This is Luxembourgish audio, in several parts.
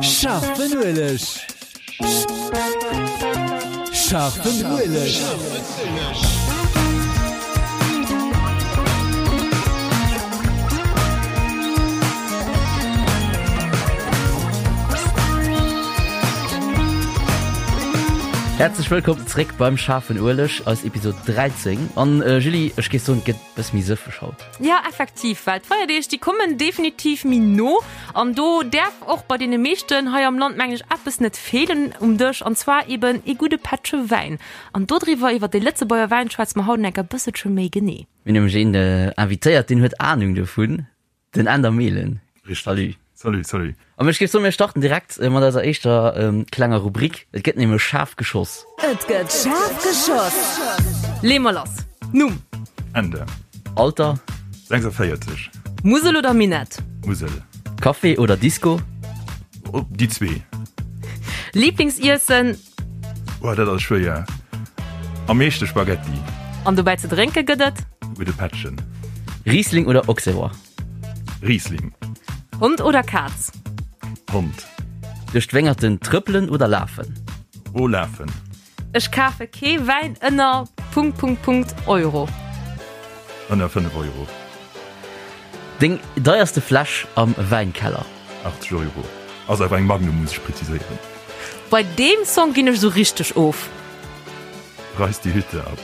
Scharfen Ueleg. Scharfen Ueleg. Häerzlech wëllkomm zréck beim Schaarfen Ueleg, eis Episode 13. An Julie, ech géif soen, et gëtt bësse méi sëffeg haut. Ja, effektiv, well d'Feierdeeg, déi kommen definitiv méi no an do däerf och bei deene meeschten hei am Land, mengen ech, eppes net feelen um Dësch, an zwar eben ee gudde Pättche Wäin. An dodriwwer, iwwer de Lëtzebuerger Wäin, schwätze mer haut enker e bësselche méi genee. Mir hunn nämlech een invitéiert, deen huet Anung dovun. Den Änder Mehlen. Richtig. Salut. Salut, salut. An ech géif soen, mir starten direkt mat eiser éischter klenger Rubrik. Et gëtt nämlech schaarf geschoss. Et gëtt schaarf geschoss. Lee mer lass. Numm. Änder. Alter. 46. Musel oder Minett? Musel. Café oder Disco? Oh, déi zwee. Lieblingsiessen? Oh, dat ass schwéier. Am meeschte Spaghetti. An dobäi ze drénke gëtt et? Gudde Pättchen. Riesling oder Auxerrois? Riesling. Hond oder Kaz? Hond. Duerch d'Wéngerten trëppelen oder lafen? Oh, lafen. Ech kafe kee Wäin ënner Punkt Punkt Punkt Euro. Ënner 5 Euro. Deng deierste Fläsch am Wäinkeller? 80 Euro. Ass awer eng Magnum, muss ech präziséieren. Bei deem Song ginn ech esou richteg of. Reiß die Hütte ab.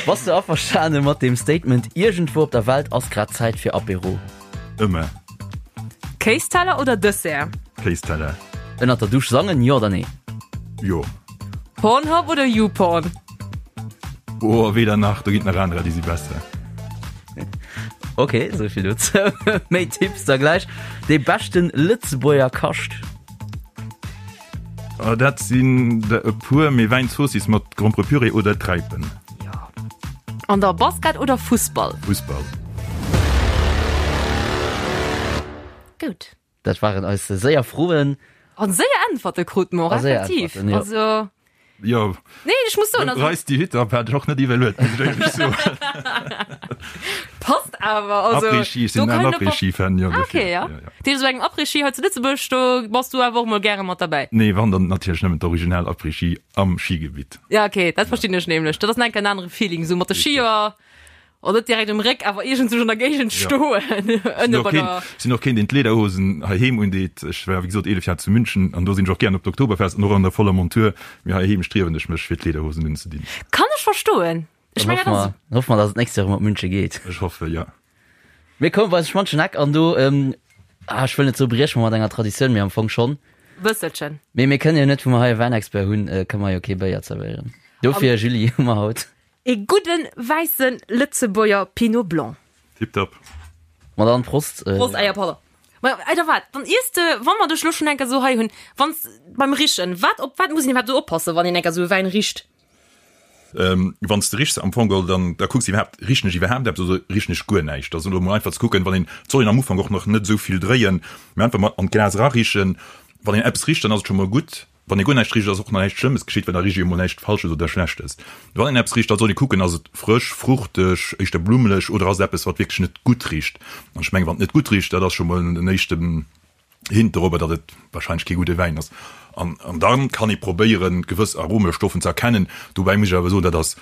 Bass du averstane mat dem Statement Iergendwou op der Welt ass grad Zäit fir Apéro? Ëmmer. Kéisteller oder Dessert? Kéisteller. Ënnert der Dusch sangen, jo oder nee? Jo. Pornhub oder YouPorn? Oh, weder nach, do ginn et nach anerer, déi si besser. Ok, esou vill dozou. Méi Tipps da gläich. Dee beschten Lëtzebuerger Kascht? Oh, dat sinn der e puer, mee Wäinzoossiss mat Gromperepüree oder Träipen. Jo. An der Basket oder Fussball? Fussball. Goud. Dat waren eis séier Froen. An séier Äntwerte krute mer och, effektiv. Jo. Also. Jo. Nee, ech muss soen, also. Reiss die Hütte ab hat ech och net iwwerluet, muss ech éierlech soen. Passt awer, also. Après-Ski, ech sinn en Après-Ski-Fan, jo. Ah, okay, ja. Dat heescht, esou engem Après-Ski hei zu Lëtzebuerg, do bass du awer och mol gäre mat derbäi. Nee, wann dann natierlech nëmmen d'original Après-Ski am Skigebitt. Ja, okay, dat verstinn ech nämlech. Dat ass nach eng Kéier en anere Feeling, esou mat de Skier. Oh, net direkt um Réck, awer iergendswou an der Géigend stoen. Ënne bei der. Sinn och keen, deen d'Lederhosen heiheem undeet. Ech war, wéi gesot, 11 Jar zu München an do sinn ech och gären op d'Oktoberfest an och an der voller Montur. Mee heiheem striewen ech mech, fir d'Lederhosen unzedinn. Kann ech verstoen. Ech mengen, dat ass. Dann hoffe mer, dass et d'nächst Joer erëm op München geet. Ech hoffe, jo. Mir kommen bei eise schmanschen Eck an do, ah, ech wëll net soe brieche mer mat enger Traditioun, mee am Fong schonn. Bësselchen. Mee mir kënnen jo net, wou mer hei e Wäinexpert hunn, kënne mer jo kee Béier zerwéieren. Dofir, Julie, hu mer haut. Ee gudden wäissen Lëtzebuerger Pinot Blanc. Tiptop. Ma dann Prost. Prost, ah jo, pardon. Ma oder wat, dann iers de, wa mer dech lo schon enker sou hei hunn, wanns beim Richen, wat, op wat muss een iwwerhaapt sou oppassen, wann een enker sou e Wäin richt? Wann s de richs am Fong geholl, dann da kucks de iwwerhaapt, richen ech iwwerhaapt eppes oder richen ech guer näischt? Dat ass elo mol einfach ze kucken, wann een, et soll een am Ufank och nach net esou vill dréien, mee einfach mol an d'Glas erarichen. Wann een eppes richt, dann ass et scho mol gutt. Wann ee guer näischt richt, ass och nach näischt Schlëmmes geschitt, well da richt ee jo mol näischt Falsches oder Schlechtes. Wann een eppes richt, da soll ee kucken, ass et frësch, fruchteg, éischter blummeleg oder ass et eppes, wat wierklech net gutt richt? An ech mengen, wann et net gutt richt, dat ass scho mol en éischten Hint dorobber, datt et warscheinlech kee gudde Wäin ass. An da kann ee probéieren, gewëss Aromestoffen ze erkennen. Dobäi muss ech awer soen, dat ass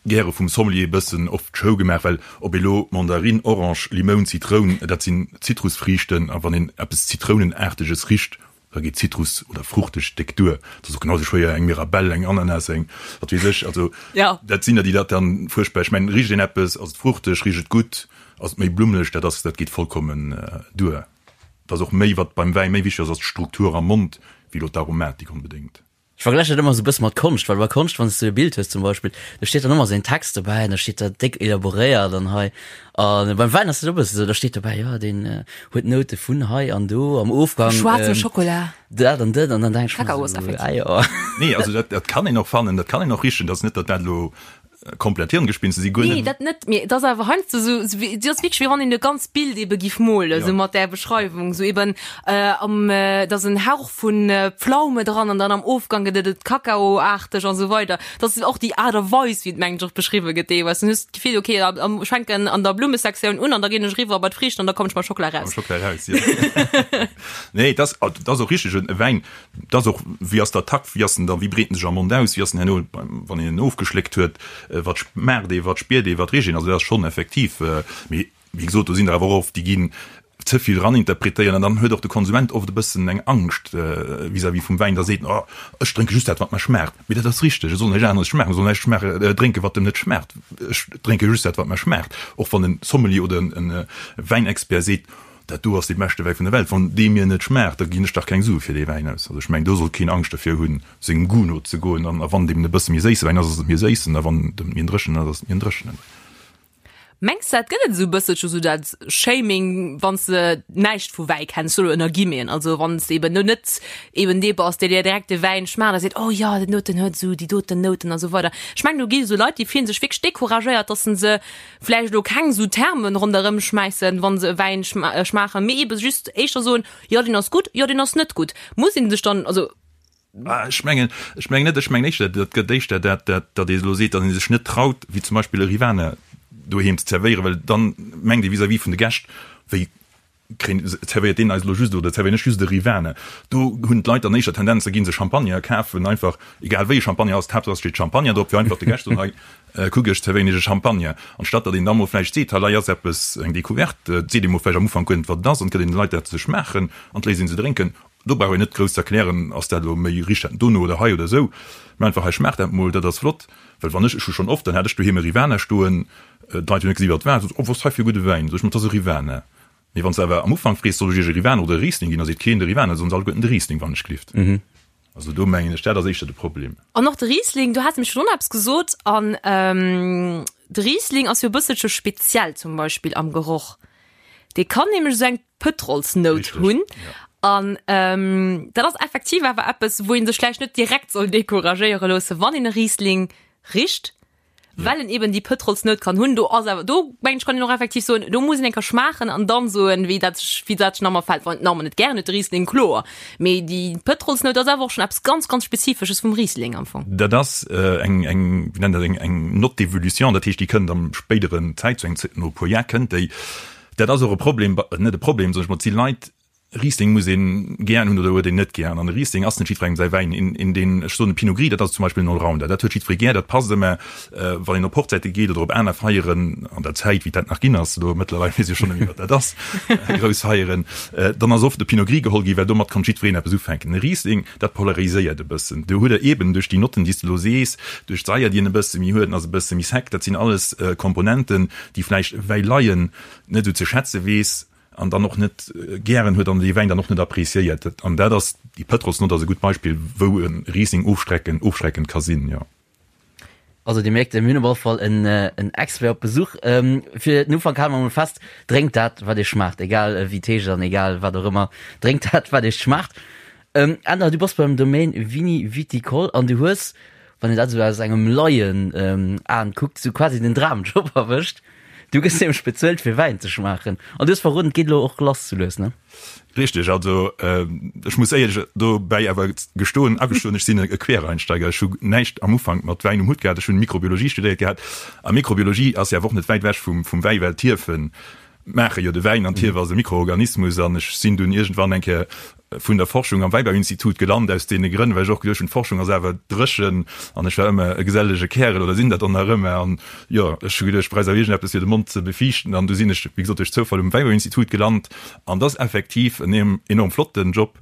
gäre vum Sommelier e bëssen oft Show gemaach, well ob elo Mandarinn, Orange, Limoun, Zitroun, dat sinn Zitrusfriichten a wann een eppes Zitrounenaarteges richt, da geet Zitrus oder fruchteg déck duer. Dat ass och genau esou schwéier eng Mirabelle, eng Ananas, eng wat weess ech. Also dat sinn der, déi dat dann fuerchtbar, ech mengen, richt een eppes, ass et fruchteg, richt et gutt, ass et méi blummeleg, dat ass, dat geet vollkommen duer. Et ass och méi, wat beim Wäi méi wichteg ass, ass d'Struktur am Mond, wéi elo d'Aromatik onbedéngt. Ech vergläichen dat ëmmer esou e bësse mat Konscht, well bei Konscht, wann s du e Bild hues zum Beispill, do steet dann ëmmer esou en Text dobäi an da steet dat déck elaboréiert an hei. A beim Wäin ass dat och e bësse esou, da steet dobäi, jo deen huet Noute vun hei an do am Ofgang. Schwaarze Schokola. Dat an dat an dann denk ech mer Kakaos, esou, effektiv. ah jo. Nee, also dat, dat kann een och fannen, dat kann een och richen, dat ass net, datt dat elo. Komplett Hirngespinste si guer net. Nee, dat net, mee et ass awer heiansdo esou, esou wéi, et ass wierklech wéi wann een e ganzt Bild ebe giff molen, esou mat där Beschreiwung, esou eben am, et ass en Hauch vun Pflaume dran an dann am Ofgang gëtt et et Kakaoaarteg an esou weider. Dat ass och déi Aart a Weis, wéi et mengen ech och beschriwwe gëtt deelweis. Dann hues de d'Gefill, okay, am, ech fänken an der Blummesektioun un an da ginn ech eriwwer bei d'Friichten an da kommen ech mam Schockela raus. Mam Schockela raus, jo. Nee, et ass, et ass och richteg, e Wäin, Et ass och, wéi ass der Takt, wéi ass en da, wéi breet en sech am Mond aus, wéi ass en herno, wann een en ofgeschléckt huet, wat schmaacht ee, wat spiert ee, wat richt een. Also dat ass schonn effektiv, mee wéi gesot, do sinn der awer och oft, déi ginn ze vill eraninterpretéieren an dann huet och de Konsument oft e bëssen eng Angscht vis-à-vis vum Wäin, da seet en, oh ech drénke just dat, wat mer schmaacht. Mee dat ass richteg, et soll näischt aneres schmaachen, et soll näischt schmaache, drénken, wat em net schmaacht. Ech drénke just dat, wat mer schmaacht. Och wann e Sommelier oder e Wäinexpert seet, Dat do ass dee beschte Wäi vun der Welt. Wann dee mir net schmaacht, da ginn ech dach keng Sue fir dee Wäin aus. Also ech mengen, do sollt keen Angscht dervir hunn, sengem Goût nozegoen. An a wann et eben e bësse méi séisse Wäin ass, ass et méi séissen, a wann et méi en dréchenen ass, ass et méi en dréchenen. Mengs de, et gëtt et esou e bësselche sou dat Shaming, wann s de näischt vu Wäi kenns, solo ënner Guillemeten, also wann s de eben elo net eben dee bass, dee dir direkt de Wäin schmaacht a seet, oh jo, den doten huet esou déi doten Nouten a sou weider. Ech mengen, do gi esou Leit, déi fillen sech wierklech decouragéiert, dass se se vläicht elo keng esou Termen ronderëm schmäissen, wa se e Wäin schmaachen, mee ebe just éischter soen, jo deen ass gutt, jo deen ass net gutt. Muss een sech dann, also. Ech mengen, ech mengen net, ech mengen éischter, dat gëtt éischter dat, dat, datt ee elo seet, datt ee sech net traut, wéi zum Beispill e Rivaner doheem ze zerwéieren, well dann mengt ee vis-à-vis vun de Gäscht, wéi Kréien, zerwéiert deen eis elo just, oder zerwéieren ech just e Rivaner? Do hunn d'Leit dann éischter Tendenz, da gi se Champagner kafen, einfach, egal wéi e Champagner ass, d'Haaptsaach et steet Champagner drop, fir einfach de Gäscht ze soen, hei, kuck, ech zerwéieren iech e Champagner. Anstatt datt een da mol vläicht seet, hei ass eppes, eng Decouverte, et seet ee mol vläicht am Ufank guer net, wat et ass, an et gëtt een de Leit dat ze schmaachen an et léisst een se drénken. Do brauch een net grouss ze erklären, ass dat elo méi, richt dat dono oder hei oder esou, mä einfach, hei schmaacht dat mol, dat ass flott. Well wann ech, ech hu schonn oft, dann hat ech doheem e Rivaner stoen, d'Leit hunn net gesi wat et war, sot, oh, wat ass hei fir e gudde Wäin, sot ech, ma et ass e Rivaner. Mee wann s de awer am Ufank frees, soll ech iech e Rivaner oder e Riesling ginn, da seet keen de Rivaner, da soen se alleguerten de Riesling, wann ech glift. Also do mengen ech, dat ass éischter de Problem. An och de Riesling, do has de mech virdrun eppes gesot, an de Riesling ass jo e bësselche speziell zum Beispill am Geroch. Dee kann nämlech esou eng Pëtrolsnout hunn. An dat ass effektiv awer eppes, wou ee sech vläicht net direkt soll decouragéiere loossen, wann een e Riesling richt, well en eben déi Pëtrolsnout kann hunn. Do ass awer, do mengen ech, kann een och effektiv soen, do muss een eng Kéier schmaachen an dann soen, wéi dat sech, wéi dat sech nach emol fält. Wann een et nach net gären huet, de Riesling, kloer. Mee déi Pëtrolsnout ass awer och schonn eppes ganz, ganz Spezifesches vum Riesling am Fong. Dat ass eng, eng, wéi nennt dat, eng, eng Note d'évolution, dat heescht, déi kënnt am spéideren Zäit, zu engem, no e puer Jar kënnt déi. Dat ass och e Problem, net e Problem, soen ech mol, et si Leit, Riesling muss een gären hunn oder huet een net gären. An e Riesling ass net jiddwerengem säi Wäin. Een, een deen, ech soen e Pinot Gris, dat ass zum Beispill en Allrounder, dat huet jiddweree gär, dat passt ëmmer, wann een op Hochzäite geet oder op aner Feieren, an der Zäit wéi dat nach ginn ass, elo mëttlerweil weess ech schonn net méi wat dat ass, grouss Feieren, dann ass oft de Pinot Gris geholl ginn, well domat konnt jiddwereen eppes ufänken. E Riesling, dat polariséiert e bëssen. Do huet der eeben duerch déi Notten, déi s de elo sees, duerch d'Saier, déi en e bësse méi huet, en ass e bësse méi sec, dat sinn alles Komponenten, déi vläicht e Wäileien net esou ze schätze weess an dann och net gären huet an dee Wäin dann och net appréciéiert. An dat ass, déi Pëtrolsnott ass e gutt Beispill, wou e Riesling ofstrecken, ofschreckend ka sinn, jo. Also Dir mierkt, mir hunn op alle Fall en, en Expert op Besuch. Fir den Ufank hale mer emol fest, Drénkt dat, wat Iech schmaacht, egal wéi et heescht an egal wat och ëmmer. Drénkt dat, wat Iech schmaacht. Änder, du bass beim Domaine Vini Viticole an du hues, wann een dat esou aus engem Laien-Aen kuckt, esou quasi den Dramjob erwëscht. Du gëss nämlech bezuelt fir Wäin ze schmaachen. An du hues verroden, et geet elo och lass sou lues, ne? Richteg, also ech muss éierlech dobäi awer gestoen, agestoen, ech sinn e Quereinsteiger. Ech hu näischt am Ufank mat Wäin um Hutt gehat. Ech hunn Mikrobiologie studéiert gehat a Mikrobiologie ass jo awer och net wäit ewech vum Wäi, well d'Hiefen maache jo de Wäin an d'Hief ass e Mikroorganismus. An ech sinn dunn iergendwann eng Kéier vun der Forschung am Wäibauinstitut gelant, aus deene Grënn, well ech och geduecht hunn, d'Forschung ass awer dréchen an ech war ëmmer e gesellege Kärel oder sinn dat och nach ëmmer an jo, ech hu geduecht, ech bräicht awer iergendeppes fir de Mond ze befiichten an du sinn ech, wéi gesot, duerch Zoufall um Wäibauinstitut gelant an dat ass effektiv en enorm flotten Job.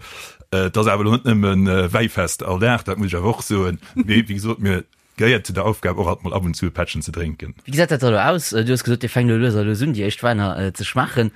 Et ass awer elo net nëmme Wäifest all Dag, dat muss ech awer och soen, mee wéi gesot, mir Gehéiert zu der Aufgab och alt mol ab und zu e Pättchen ze drénken. Wéi gesäit dat da elo aus? Du hues gesot, Dir fänkt elo lues a lues un, déi éischt Wäiner ze schmaachen.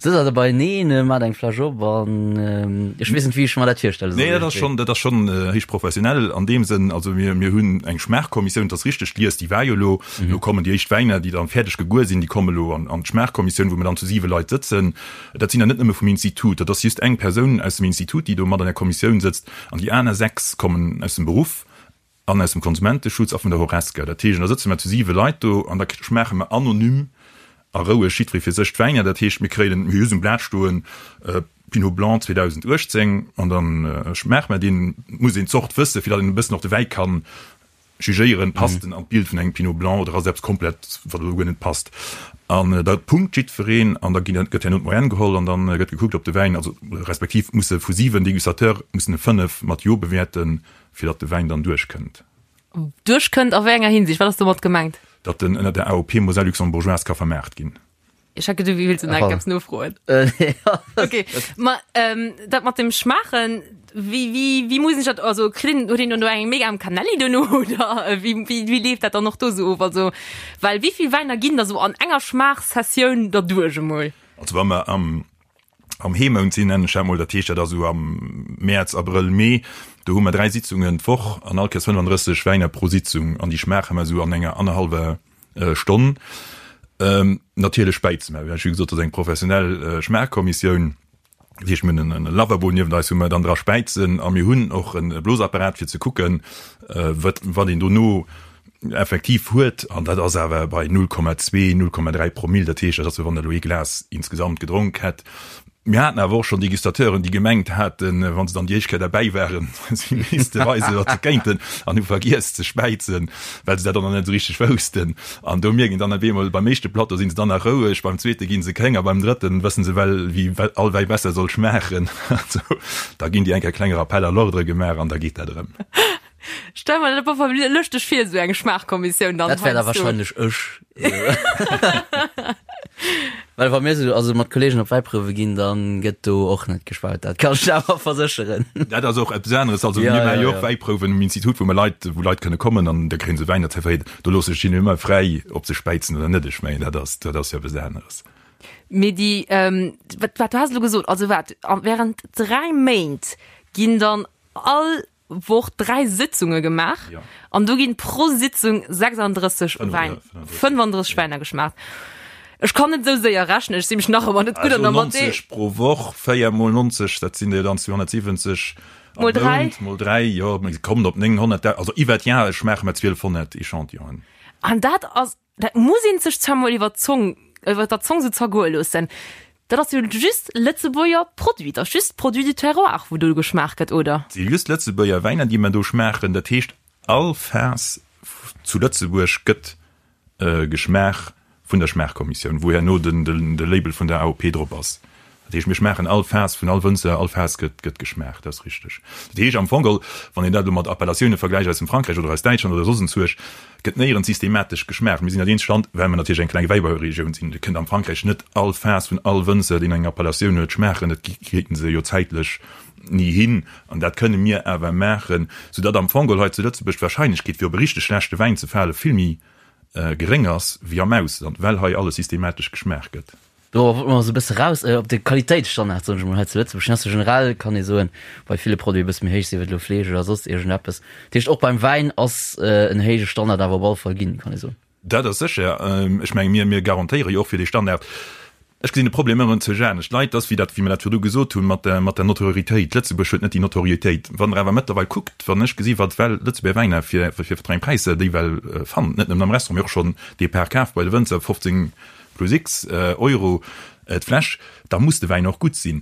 Sëtzt der da beieneen, maacht eng Fläsch op an ech weess net, wéi ech mer dat virstelle soll. Nee, dat ass schonn, dat ass schonn héich professionell an deem Sënn. Also mir, mir hunn eng Schmaachkommissioun, dat ass richteg, d'Lies, déi war jo elo. Elo kommen déi éischt Wäiner, déi dann fäerdeg geguer sinn, déi kommen elo an, an d'Schmaachkommissioun, wou mir dann zu siwe Leit sëtzen. Dat sinn der net nëmme vum Institut, dat ass just eng Persoun aus dem Institut, déi do mat an der Kommissioun sëtzt an déi aner sechs kommen aus dem Beruff. An aus dem Konsumenteschutz a vun der Horesca. Dat heescht, da sëtze mer zu siwe Leit do an da schmaache mer anonym a roueg jiddweree fir sech d'Wäiner. Dat heescht, mir kréien, mir hu just um Blat stoen, Pinot Blanc 2018 an da schmaache mer deen. Et muss een d'Zort wëssen, fir datt een e bëssen och de Wäi kann jugéieren, passt en an d'Bild vun engem Pinot Blanc oder ass et eppes komplett, wat elo guer net passt. An da punkt jiddwereen an da ginn, gëtt herno d'Moyenne geholl an da gëtt gekuckt, ob de Wäin, also respektiv musse vu 7 Dégustateure mussen e 5 mat Jo bewäerten, fir datt de Wäin dann duerchkënnt. Duerchkënnt a wéi enger Hinsicht? Wat ass domat gemengt? Datt en ënner der AOP Moselle Luxembourgeoise ka vermaart ginn. Ech hat geduecht, du wéilts nach eppes nofroen. Okay, ma dat mat dem Schmaachen, wéi, wéi, wéi muss ech dat, also kritt een, huet een dann do eng mega am Canelli duerno oder wéi, wéi, wéi leeft dat dann och do sou of? Also, well wéi vill Wäiner ginn da sou an enger Schmaachsessioun derduerch emol? Also wa mer am am Heemount sinn, nennen ech dat mol, dat heescht, dat ass esou am Mäerz, Abrëll, Mee, do hu mer 3 Sitzungen d'Woch an all Kéiers 35 Wäiner pro Sitzung an déi schmaache mer esou an enger annerhallwer Stonn. Natierlech späize mer, wéi gesot, dat ass eng professionell Schmaachkommissioun, dat heescht, mir hunn en Lavabo niewent eis, wou mer dann dra späizen a mir hunn och e Blosapparat fir ze kucken, wat wat een dono effektiv huet, an dat ass awer bei 0,2, 0,3 Promill, dat heescht, dat ass wéi wann der elo ee Glas insgesamt gedronk hätt. Mir haten awer och schonn Degustateuren, déi gemengt haten, wa se dann déi éischt Kéier derbäi waren, si misste weisen, wat se kéinten, an hu vergiess ze späizen, well se dat och nach net esou richteg woussten. An do mierkt een dann op eemol, beim éischte Plateau si se dann nach roueg, beim zweete gi se kéng a beim drëtten wësse se well, wéi all Wäi besser soll schmaachen. Also da ginn déi eng Kéier klenge Rappel à l'ordre gemaach an da geet dat erëm. Stell mer dat op alle Fall lëschteg vir, esou eng Schmaachkommissioun dann. Dat wär da wahrscheinlech ech. Well wa mir sou also mat Kollegen op Wäiprouwe ginn, dann gëtt do och net gespaut, dat kann ech der awer versécheren. Dat ass och eppes aneres. Also mir maache jo och Wäiprouwen um Institut, wou mer Leit, wou Leit kënne kommen an da kréie se Wäin zerwéiert. Do loosse ech hinnen ëmmer fräi, ob se späizen oder net. Ech mengen, dat ass, dat ass jo eppes aneres. Mee déi, wat, wat du has elo gesot, also wat, während 3 Méint ginn dann all Woch 3 Sitzunge gemaach ja. an do ginn pro Sitzung 36 Wein 35 Weiner geschmaacht. Ech kann net sou séier rechnen, ech si mech nach ëmmer net gutt an der Mathé. 90 pro Woch, 4 mol 90, dat sinn der dann 270 mol 3 mol 3, jo, mir kommen op 900, also iwwer d'Jahr schmaache mer 1200 Echantillonen. An dat ass Dat muss een sech zwar mol iwwer d'Zong, iwwer der Zong sou zergoe loossen. Dat ass jo just Lëtzebuerger Produit, dat ass just Produit du terroir, wou do geschmaacht gëtt, oder? Et si just Lëtzebuerger Wäiner, déi mer do schmaachen. Dat heescht, all Faass zu Lëtzebuerg gëtt geschmaach vun der Schmaachkommissioun, wou herno de Label vun der AOP drop ass. Dat heescht, mir schmaachen all Faass vun all Wënzer, all Faass gëtt gëtt geschmaacht, dat ass richteg. Dat heescht am Fong geholl, wann een dat elo mat Appellatioune vergläicht aus dem Frankräich oder aus Däitschland oder soss enzuerg, gëtt néierens systematesch geschmaacht. Mir sinn dat eenzegt Land, well mer natierlech eng kleng Wäibauregioun sinn, et kënnt am Frankräich net all Faass vun all Wënzer, deen eng Appellatioun huet, schmaachen. Dat kriiten se jo zäitlech ni hin. An dat kënne mir awer maachen, soudatt am Fong geholl hei zu Lëtzebuerg d'Wahrscheinlechkeet, fir op e richteg schlechte Wäin ze fale, vill méi geréng ass wéi am Ausland, well hei alles systematesch geschmaacht gëtt. Do wollte mer esou e bësse raus op de Qualitéitsstandard, soen ech emol, hei zu Lëtzebuerg. Deen ass jo generell, kann ee soen, bei ville Produiten e bësse méi héich, sief et elo Fleesch oder soss iergendeppes. Dat heescht, och beim Wäin ass en héije Standard awer op alle Fall ginn, kann ee soen. Dat ass sécher. Ech menge mir, mir garantéiere jo och fir dee Standard. Ech gesinn de Problem ëmmer erëm zu anescht. D'Leit, ass wéi dat, wéi mer dat virdu gesot hunn, mat der, mat der Notoriétéit. Lëtzebuerg huet net déi Notoriétéit. Wann Der awer mëttlerweil kuckt, wann ech gesi wat well Lëtzebuerger Wäiner fir, fir wat fir eng Präisser déi well fannt, net nëmmen am Restaurant, mee och schonn Depart kaf bei de Wënzer, 15, plus X Euro d'Fläsch, da muss de Wäin och gutt sinn.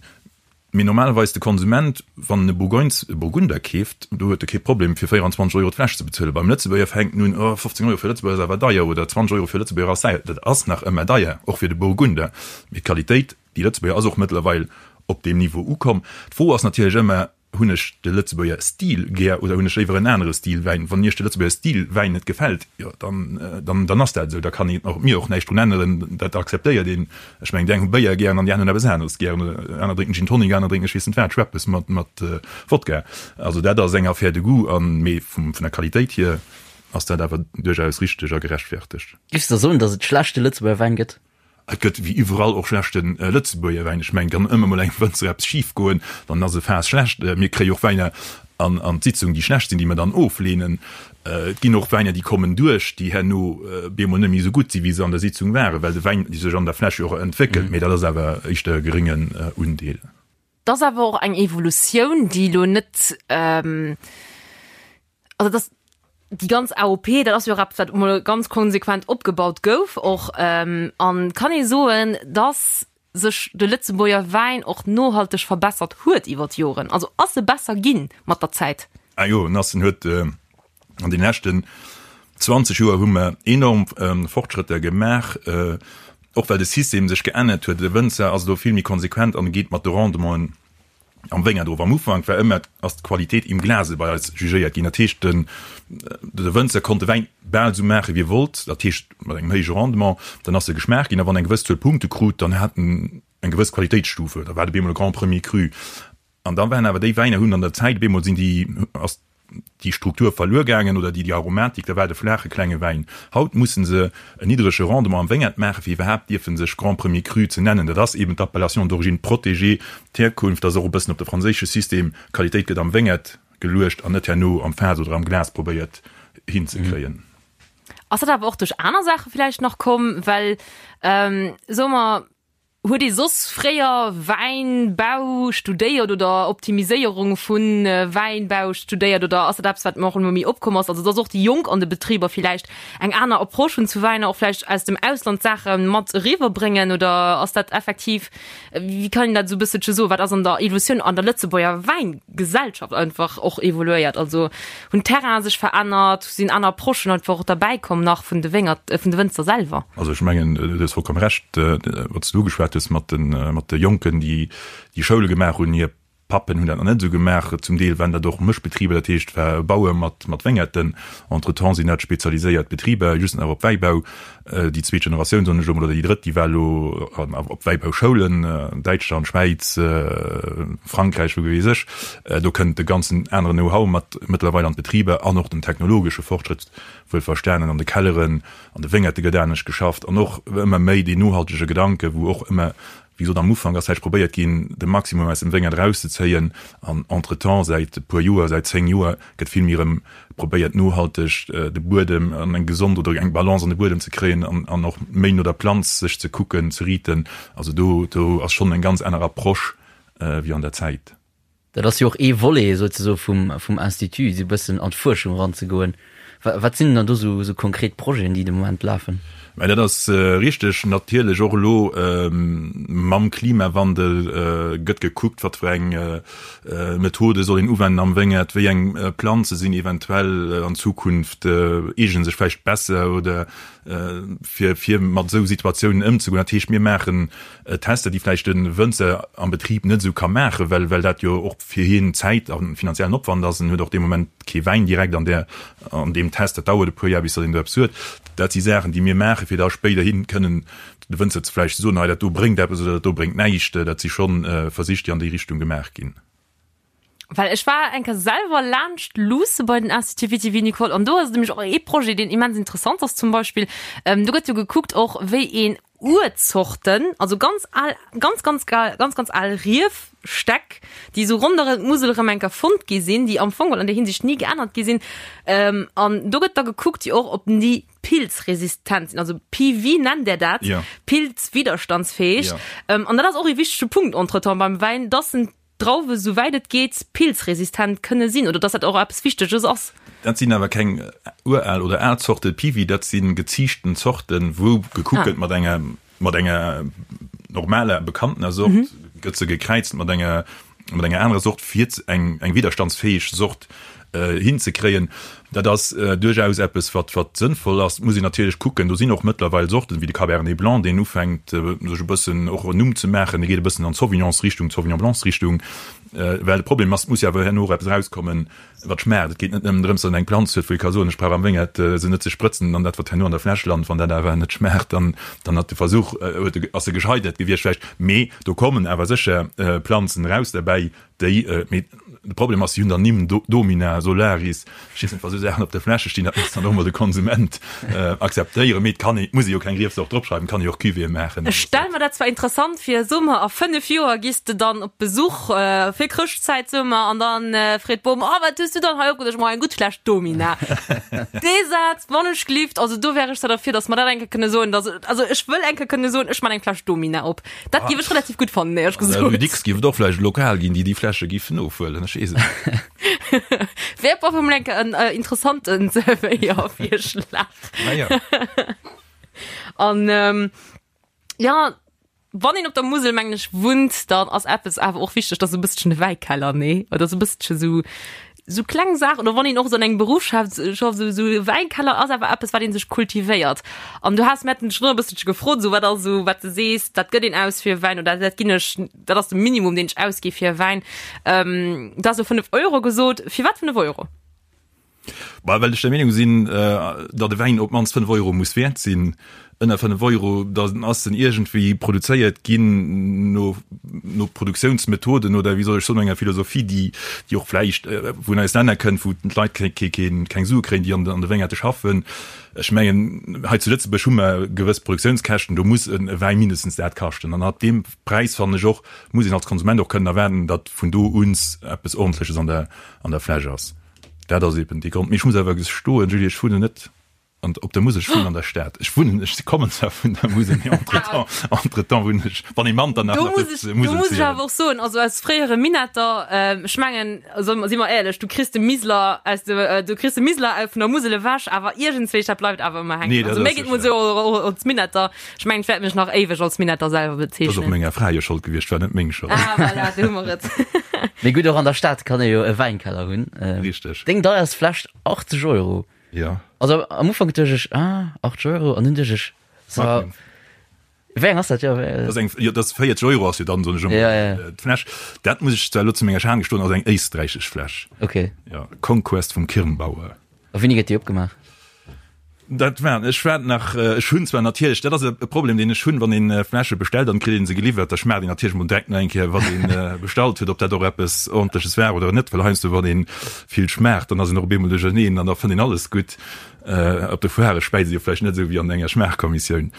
Mee normalerweis de Konsument, wann en e Bourgogne, e Burgunder keeft, do huet e kee Problem fir 24 Euro d'Fläsch ze bezuelen. Beim Lëtzebuerger fänkt en un, oh 15 Euro fir e Lëtzebuerger ass awer deier oder 20 Euro fir e Lëtzebuerger ass deier. Dat ass nach ëmmer deier, och fir de Burgunder. Mee d'Qualitéit, déi Lëtzebuerger ass och mëttlerweil op deem Niveau ukomm. D'Fro ass natierlech ëmmer, Hunn ech de Lëtzebuerger Stil gär oder hunn ech léiwer en anere Stil Wäin? Wann Iech de Lëtzebuerger Stil Wäin net gefält, jo dann, dann, dann ass dat esou. Da kann een och mir och näischt drun änneren, dat akzeptéiert een. Ech mengen, déi eng hu Béier gären an déi aner hunn eppes aneres gären. Aner drénken Gin Tonic, aner drénken ech weess net wat, Schweppes mat, mat Wodka. Also dat ass eng Affaire de goût an, mee vum, vun der Qualitéit hier ass dat awer duerchaus richteg a gerechtfertegt. Giffs de soen, datt et schlechte Lëtzebuerger Wäin gëtt? Et gëtt wéi iwwerall och schlechte Lëtzebuerger Wäin. Ech mengen, kann ëmmer mol engem Wënzer eppes schif goen, dann ass e Faass schlecht. Mir kréie och Wäiner an an d'Sitzung, déi schlecht sinn, déi mer dann ofleenen. Et ginn och Wäiner, déi kommen duerch, déi herno bemol net méi esou gutt sinn, wéi se an der Sitzung waren, well de Wäin sech an der Fläsch jo och entwéckelt. Mee dat ass awer éischter e geréngen Undeel. Et ass awer och eng Evolutioun, déi elo net, also et ass. Déi ganz AOP, dat ass jo och eppes, wat emol ganz konsequent opgebaut gouf och. An kann ee soen, dass sech de Lëtzebuerger Wäin och nohalteg verbessert huet iwwer d'Joren? Also ass e besser ginn mat der Zäit? Ah jo, en ass, en huet an den leschten 20 Joer hu mer enorm Fortschrëtter gemaach, och well de System sech geännert huet. De Wënzer ass elo vill méi konsequent an geet mat de Rendementen am Wéngert of. Am Ufank war ëmmer ass d'Qualitéit im Glase bei eis jugéiert ginn. Dat heescht, den de Wënzer konnt de Wäin bal esou maache wéi e wollt, dat heescht mat engem héije Rendement, dann ass e geschmaacht ginn a wann eng gewëss Zuel Punkte krut, dann hat en eng gewëss Qualitéitsstufe, da war et op eemol e Grand Premier Cru. An da waren awer déi Wäiner hunn an der Zäit op eemol sinn déi ass déi Struktur verluer gaangen oder déi Aromatik, da war et e flaache klenge Wäin. Haut mussen se en niddrege Rendement am Wéngert maachen, fir iwwerhaapt dierfen sech Grand Premier Cru ze nennen. Dat ass eben d'Appellation d'origine protégée, d'Hierkunft ass och e bëssen op de franséische System, Qualitéit gëtt am Wéngert geluecht an net herno am Faass oder am Glas probéiert hinzekréien. Ass dat awer och duerch aner Saache villäicht nach komm, well, soe mer, Huet ee soss fréier Wäinbau studéiert oder Optimiséierung vu Wäinbau studéiert oder ass dat eppes, wat och ëmmer méi opkomm ass? Also dass och déi Jonk an de Betriber villäicht eng aner Approche hunn zu Wäiner, och vläicht aus dem Ausland Saache mat eriwwer bréngen oder ass dat effektiv, wéi kann een dat esou e bësselche soen, wat ass an der Evolutioun an der Lëtzebuerger Wäingesellschaft einfach och evoluéiert? Also hunn d'Terrainen sech verännert, sinn aner Approchen einfach och derbäi komm nach vun de Wéngert, vun de Wënzer selwer? Also ech mengen, du hues vollkomm Recht, wat s du ugeschwat hues mat de, mat de Jonken, déi déi Schoule gemaach hunn. Hir Pappen hunn dat nach net esou gemaach. Zum Deel waren dat och Mëschbetriber, dat heescht, war Bauer mat, mat Wéngerten. Entretemps sinn dat spezialiséiert Betriber, just nach op Wäibau. Déi zweet Generatioun, soen ech elo mol, oder déi drëtt, déi war elo op Wäibauschoulen, Däitschland, Schwäiz, Frankräich, wou weess ech. Do kënnt e ganzen aneren Know-how mat mëttlerweil an d'Betriber an och den technologesche Fortschrëtt, wuelverstanen, an de Kelleren, an de Wéngerte gëtt anescht geschafft an och ëmmer méi deen nohaltege Gedanke, wou och ëmmer Wéi gesot, am Ufank ass vläicht probéiert ginn, de Maximum aus dem Wéngert erauszezéien an entretemps, säit e puer Joer, säit 10 Joer, gëtt vill méi erëm probéiert, nohalteg de Buedem an eng gesond oder eng Balance an de Buedem ze kréien an an och méi no der Planz sech ze kucken, ze riiten. Also do do ass schonn eng ganz aner Approche wéi an der Zäit. Dat ass jo och ee Volet souzesoe vum, vum Institut, esou e bëssen an d'Fuerschung eranzegoen. Wat sinn dann do esou, esou konkret Projeten, déi de Moment lafen? Mä dat ass richteg. Natierlech och elo mam Klimawandel gëtt gekuckt, wat fir eng Methode soll een uwenden am Wéngert, wéi eng Planze sinn eventuell an Zukunft, eegene sech vläicht besser oder fir, fir mat esou Situatiounen ëmzegoen. Dat heescht, mir maachen Tester, déi vläicht de Wënzer am Betrib net esou ka maachen, well well dat jo och fir hien Zäit a finanziellen Opwand ass. En huet och dee Moment kee Wäin direkt an där an deem Test, dat dauert e puer Jar, bis datt een do eppes huet. Dat si Saachen, déi mir maachen, fir da spéiderhi kënnen de Wënzer ze vläicht ze soen, hei dat do bréngt eppes oder dat do bréngt näischt. Dat si scho Versich, déi an déi Richtung gemaach ginn. Well ech war eng Kéier selwer laanscht luusse bei den Institut Viti-Vinicole an do ass et nämlech och ee Projet, deen immens interessant ass zum Beispill. Do gëtt jo gekuckt och, wéi een Urzorten, also ganz al, ganz, ganz gal, ganz, ganz al Riefstäck, déi esou ronderëm d'Musel erëm eng Kéier fonnt gi sinn, déi am Fong an där Hinsicht ni geännert gi sinn. An do gëtt da gekuckt jo och, ob déi pilzresistent sinn, also PV nennt der dat, Ja. pilzwiderstandsfäeg. Ja. An dat ass och ee wichtege Punkt entretemps beim Wäin, dass en Drauwe souwäit et geet pilzresistent kënne sinn oder dass dat och eppes Wichteges ass. Dat sinn awer keng ural oder al Zorte Piwi, dat si geziichten Zorten, wou gekuckt gëtt mat enger mat enger normaler bekanntener Sort, gëtt se gekräizt mat enger mat enger anerer Sort fir eng eng widderstandsfäeg Sort hinzekréien. Dat ass duerchaus eppes, wat wat sënnvoll ass. Et muss een natierlech kucken, do sinn och mëttlerweil Sorten, wéi de Cabernet Blanc, deen ufänkt sech e bëssen och en Numm ze maachen, dee geet e bëssen an d'Sauvignonsrichtung, d'Sauvignon Blancsrichtung. Well de Problem ass, et muss jo awer herno och eppes erauskommen, wat schmaacht. Et geet net nëmmen drëms, datt een eng Planz huet, wou ee ka soen, ech brauch am Wéngert se net ze sprëtzen an dat, wat herno an der Fläsch lant, wann dat awer net schmaacht, dann dann hat de Versuch, huet e, ass e gescheitert gewiescht vläicht. Mee do kommen awer sécher Planzen eraus derbäi, Déi, mee de Problem ass, si hunn dann Nimm, Domina, Solaris, ech weess net, wa sou Saachen op de Fläsche stinn, dat muss dann och mol de Konsument akzeptéieren. Mee et kann ee, et muss ee jo keng Riefsort dropschreiwen, et kann ee jo och Cuvée maachen. Ech stell mer dat zwar interessant vir, soe mer a 5 Joer giss de dann op Besuch fir Chrëschtzäit, soe mer, an dann freet d'Bom, Oh, wat hues du dann hei opgeduecht? Ma eng gutt Fläsch Domina. Dee Saz, wann ech gelift, also do wär ech zwar derfir, datt mer dat eng Kéier kënne soen, datt, also ech wëll eng Kéier kënne soen, ech man eng Fläsch Domina op. Dat géif ech relativ gutt fannen, éierlech gesot. Rue Dicks géif et och vläicht e Lokal ginn, déi déi Fläsche géifen ofhuelen, ech weess et net. Wär op alle Fall enke en interessanten Zerwéiervirschlag. Naja. An jo, wann een op der Musel, mengen ech, wunnt, dann ass eppes awer och wichteg, dat ass e bësselchen de Wäikeller, nee? Oder sou e bësselche sou, sou kleng Saachen. Oder wann een och sou an engem Beruff schafft, schafft, sou, sou e Wäikeller ass awer eppes, wat ee sech kultivéiert. An du has, mir haten dech schonn e bësselche gefrot, sou wat ass sou, wat de sees, dat gëtt een aus fir e Wäin oder dat ginn ech, dat ass de Minimum, deen ech ausgi fir e Wäin. Du has elo 5 Euro gesot. Firwat 5 Euro? Bah, well ech der Meenung sinn, datt e Wäin op d'mannst 5 Euro muss wäert sinn. Ënner 5 Euro, da ass en iergendwéi produzéiert ginn no, no Produktiounsmethoden oder wéi soll ech soen, no enger Philosophie, déi, déi och vläicht vun eis Länner kënnt, wou d'Leit keng, keng, keng Sue kréien, déi an de Wéngerte schaffen. Ech mengen, hei zu Lëtzebuerg hu mer gewëss Produktiounskäschten, do muss e Wäi mindestens dat kaschten. An ab deem Präis, fannen ech och, muss een als Konsument och kënnen erwaarden, datt vun do un eppes Ordentleches an der, an der Fläsch ass. Dat ass eben dee Grond. Mee ech muss awer gestoen, Julie, ech wunnen net an, op der Musel, ech wunnen an der Stad. Ech wunnen, ech kommen zwar vun der Musel, mee entretemps, entretemps wunnen ech, wann ee Manternach Do nach muss dierft ech, do Musel muss ech zielen. awer och soen, also als fréiere Minetter, ech mengen, also si mer éierlech, du kriss de Miseler aus de, du kriss de Miseler vun der Musel ewech, awer iergendswéi, dat bleift awer ëmmer hänken. Nee, dat Also mir ass geet mol sécher. esou och als Minetter, ech mengen, ech wäert mech nach éiweg als Minetter selwer Dat ass och bezeechnen. menger Fra hir Schold gewiescht, war net meng Schold. Ah, voilà, do hu mer et. Mee gutt, och an der Stad kann ee jo e Wäinkeller hunn. Richteg. Deng deierst Fläsch, 80 Euro. Jo. Also am Ufank duecht ech, ah, 80 Euro, an dunn duecht ech, so, Magnum. wéi eng ass dat? Jo, wéi, Dat ass eng, jo, dat ass 40 Euro ass jo dann, soen ech ëmmer, Ja, ja. d'Fläsch. Dat muss ech zwar elo zu menger Schan gestoen, ass eng éisträichesch Fläsch. Okay. Jo, Conquest vum Kirnbauer. A wéini gëtt déi opgemaach? Dat war, ech war nach, ech hunn zwar natierlech, dat ass e Problem, deen ech hunn, wann een Fläsche bestellt an et kritt een se geliwwert, da schmaacht een natierlech mol direkt nach eng Kéier, wat een bestallt huet, ob dat och eppes Ordentleches war oder net, well heiansdo, wann een vill schmaacht, dann ass een och op eemol duercherneen an da fënnt een alles gutt. Op de Foirë späizt ee jo vläicht net esou wéi an enger Schmaachkommissioun.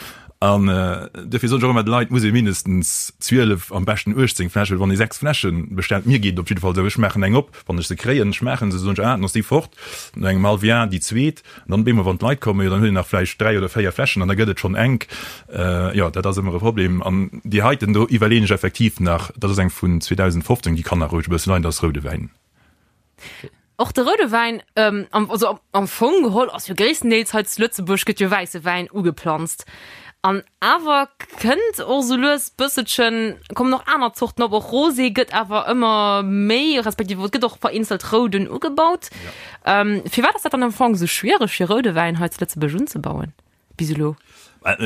An duerfir soen ech och ëmmer de Leit, et muss ee mindestens 12, am beschten 18 Fläschen, well wann ee 6 Fläsche bestellt, mir geet et op jidde Fall esou, ech maachen eng op, wann ech se kréien, schmaachen se, soen ech, ah, dann ass déi fort, no engem hallwe Jar déi zweet. An dann op eemol, wann d'Leit kommen, jo, dann huet een nach vläicht 3 oder 4 Fläschen an da gëtt et schonn enk. Jo, dat ass ëmmer e Problem. An déi heiten do iwwerleeën ech effektiv nach, dat ass eng vun 2015, déi kann nach roueg e bësse leien, dat ass roude Wäin. Och de roude Wäin, also am Fong geholl ass jo gréisstendeels hei zu Lëtzebuerg gëtt jo wäisse Wäin ugeplanzt. An awer kënnt och sou lues bësselchen, kommen och aner Zorten op, och Rosé gëtt awer ëmmer méi, respektiv et gëtt och vereenzelt Rouden ugebaut. Firwat ass dat dann am Fong sou schwiereg fir roude Wäin hei zu Lëtzebuerg unzebauen bis elo?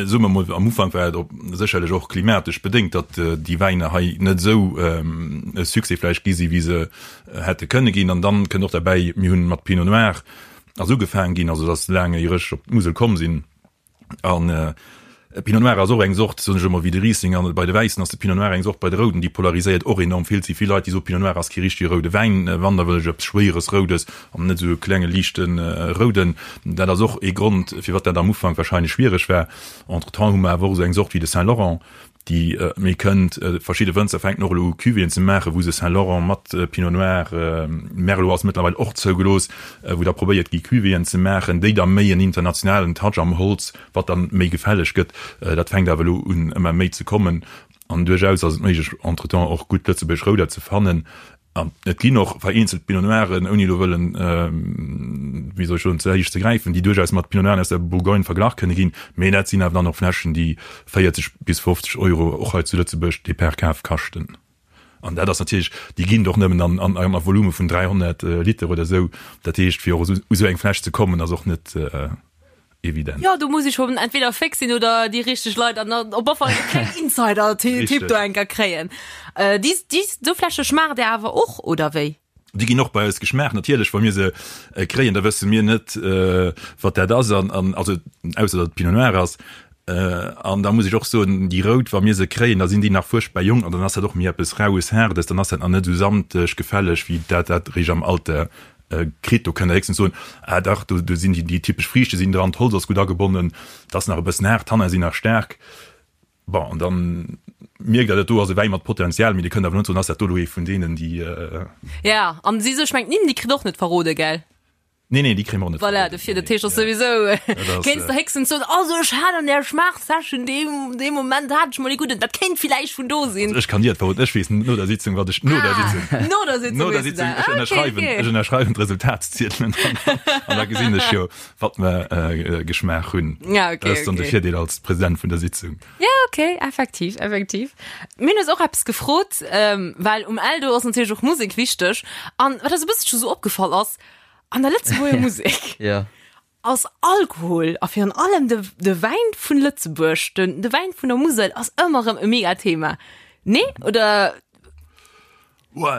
Soe mer mol, am Ufank war et op sécherlech och klimatesch bedéngt, datt déi Wäiner hei net esou e Succès vläicht gi si wéi se hätte kënne ginn. An dann kënnt och derbäi, mir hunn mat Pinot Noir ass ugefaang ginn, also datt laang éier ech op d'Musel komm sinn, An Pinot Noir ass och eng Sort, soen ech ëmmer, wéi de Riesling. An bei de Wäissen ass de Pinot Noir eng Sort, bei de Rouden, déi polariséiert och enorm vill. Et si vill Leit, déi soen, Pinot Noir ass kee richtege roude Wäin, wann, da wëll ech eppes Schwéieres Roudes an net esou e klenge liichte Rouden. Dat ass och ee Grond, firwat dat am Ufank warscheinlech schwiereg war. Entretemps hu mer awer och esou eng Sort wéi de Saint Laurent, déi méi kënnt. Verschidde Wënzer fänken och elo u Cuvéeën ze maachen, wou se Saint Laurent mat Pinot Noir, Merlot ass mëttlerweil och zougelooss, wou da probéiert gi Cuvéeën ze maachen, déi da méi en internationalen Touch am Holz, wat dann méi gefälleg gëtt. Dat fänkt awer elo un ëmmer méi ze kommen an duerchaus ass et méiglech entretemps och gutt lëtzebuergesch Rouder ze fannen. An et ginn och vereenzelt Pinot Noiren, ouni elo wëllen, wéi soll ech soen, ze héich ze gräifen, déi duerchaus mat Pinot Noiren aus der Bourgogne verglach kënne ginn. Mee dat sinn awer dann och Fläschen, déi 40 bis 50 Euro och hei zu Lëtzebuerg de per Kaf kaschten. An dat ass natierlech, déi ginn et och nëmmen an a Volume vun 300 Liter oder esou. Dat heescht, fir och u sou eng Fläsch ze kommen, ass och net evident. Jo, do muss ech schon entweder féx sinn oder déi richteg Leit an op alle Fall e klengen Insider-Tipp do enker kréien. Déi, déi, sou Fläsche schmaacht Dir awer och, oder wéi? Déi ginn och bei eis geschmaacht. Natierlech, wa mir se kréien, da wësse mir net, wat dat ass, an, an also ausser datt et Pinot Noir ass. An da muss ech och soen, déi rout, wa mir se kréien, da sinn déi nach fuerchtbar jonk an dann ass dat och méi eppes Raues, Haardes, dann ass dat nach net esou samteg, gefälleg, wéi dat dat eréischt am Alter kritt. Do kënnt Der héchstens soen, ah dach, do, do sinn déi, déi typesch Friichte sinn dran, d'Holz ass gutt agebonnen, et ass nach e bëssen haart, d'Tanne sinn nach staark. Bon, an dann mierkt Der, dat do ass e Wäi mat Potenzial, mee Dir kënnt awer net soen, ass dat do elo ee vun deenen, déi. Ja, an si sech, mengt d'Nimm, déi kritt och net verrode, gell? Nee, nee, déi kréie mer och net Voilà, verbueden. dofir, Nee, dat heescht, ass ja. souwisou, Dat ass, kéints de äh, héchstens soen, also ech hat an där Schmaachsession dee, dee Moment hat ech mol ee gudden, dat kéint villäicht vun do sinn. Also ech kann dir et verroden, ech weess no der Sitzung, wat ech, no der Ah, Sitzung. no der Sitzung No der weess du Sitzung, dat. ech Ah, okay, ënnerschreiwen, okay. ech ënnerschreiwen d'Resultatsziedelen an, an da gesinn ech jo, wat mer äh, geschmaach hunn. Ja, okay, Dat ass dann de okay. Virdeel als President vun der Sitzung. Ja, okay, effektiv, effektiv. Mir hunn eis och eppes gefrot, ähm, well um Eldo ass natierlech och Musek wichteg. An wat eis e bësselche sou opgefall ass, an der Lëtzebuerger Musek Ja. ass Alkohol a virun allem de, de Wäin vun Lëtzebuerg, den, de Wäin vun der Musel ass ëmmer erëm e mega Thema. Nee? Oder?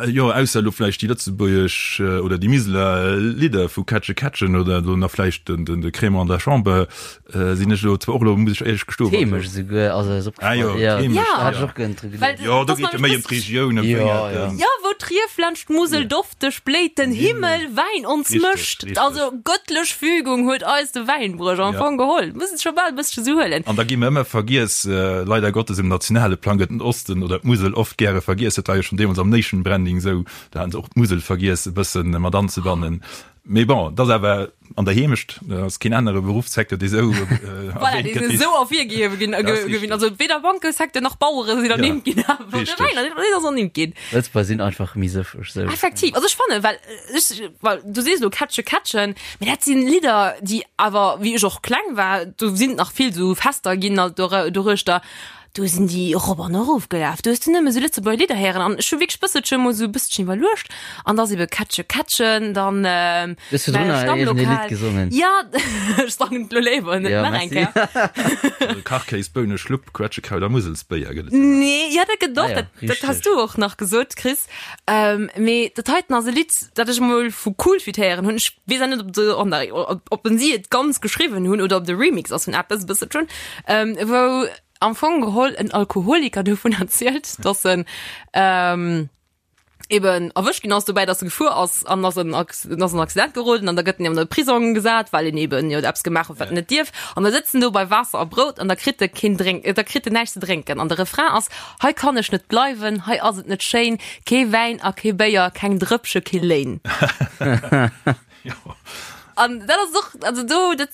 Jo, ausser elo vläicht déi lëtzebuergesch oder déi Miseler Lidder vu Kätsche Kätschen oder elo nach vläicht den de Crémant de la Chambre sinn ech elo zwar och elo, muss ech éierlech gestoen. D'Heemecht esouguer ass eis opgefall. Ah jo, d'Heemecht, Ja. Da hat ech och gënn dru geduecht. Jo, do geet et méi ëm d'Regioun, ëm d'Wéngerten. Jo, wou d'Rief laanscht d'Musel dofteg bléit, den Himmel Wäin ons mëscht. Also gëttlech Fügung huet eis de Wäinbruech am Fong geholl. Muss et scho bal e bëssche sou huelen. An da gi mer ëmmer vergiess, leider Gottes, um nationale Plang gëtt den Osten oder d'Musel oft gäre vergiess. Dat war jo schonn deemools am Nation Branding esou, do haten se och d'Musel vergiess e bëssen mat anzebannen. Mee bon, et ass awer an der Heemecht, et ass keen anere Beruffssecteur, dee esou Voilà, erwähnt dee gëtt. esou ervirgehewe ginn, Dat ass ginn. richteg. Also weder Bankesecteur nach Bauere sinn Ja, ernimmt ginn, awer de richteg. Wäin, deen ass ernimmt ginn. Lëtzebuerger sinn einfach méi sëffeg, sou. Effektiv, also ech fannen, well ech, well du sees elo Kätsche Kätschen, mee dat sinn Lidder, déi awer, wéi ech och kleng war, do sinn nach vill esou Fester ginn alt doruechter, Do sinn déi erop an erof gelaf. Do hues du nëmme sou Lëtzebuerger Lidder héieren an ech hu wierklech bësselche mol sou e bësselchen iwwerluecht an da ass ebe Kätsche Kätschen, dann Du hues virdrun mäi nach iergendee Lidd Stammlokal. gesongen. Ja, ech sangen et lo léiwer net Ja, nach eng merci. Kéier. Kachkéis, Bounen, Schlupp, Quetschekraut a Muselsbéier gëtt et jo nach. Nee, ja dat gëtt och, Ah ja, dat, dat has richteg. du och nach gesot, Chris. Mee dat heiten ass e Lidd, dat ech emol vu Coolfit héieren hunn. Ech weess awer net, ob de, oh nei, ob, ob en si et ganz geschriwwen hunn oder ob de Remix ass vun eppes, e bësselchen, wou am Fong geholl en Alkoholiker dovun erzielt, dass en ähm, eben erwëscht ginn ass dobäi, dass e gefuer ass an ass en ass en Accident geroden an da gëtt en an de Prisong gesat, well en eben jo eppes gemaach huet, wat en net dierf. An da sëtzt en do bei Waasser a Brout an da kritt e keen Drénk, da kritt en näischt ze drénken. An de Refrain ass, Hei kann ech net bleiwen, hei ass et net schéin, kee Wäin a kee Béier, keng Drëppche, kee Léin. An dat ass och, also do, dat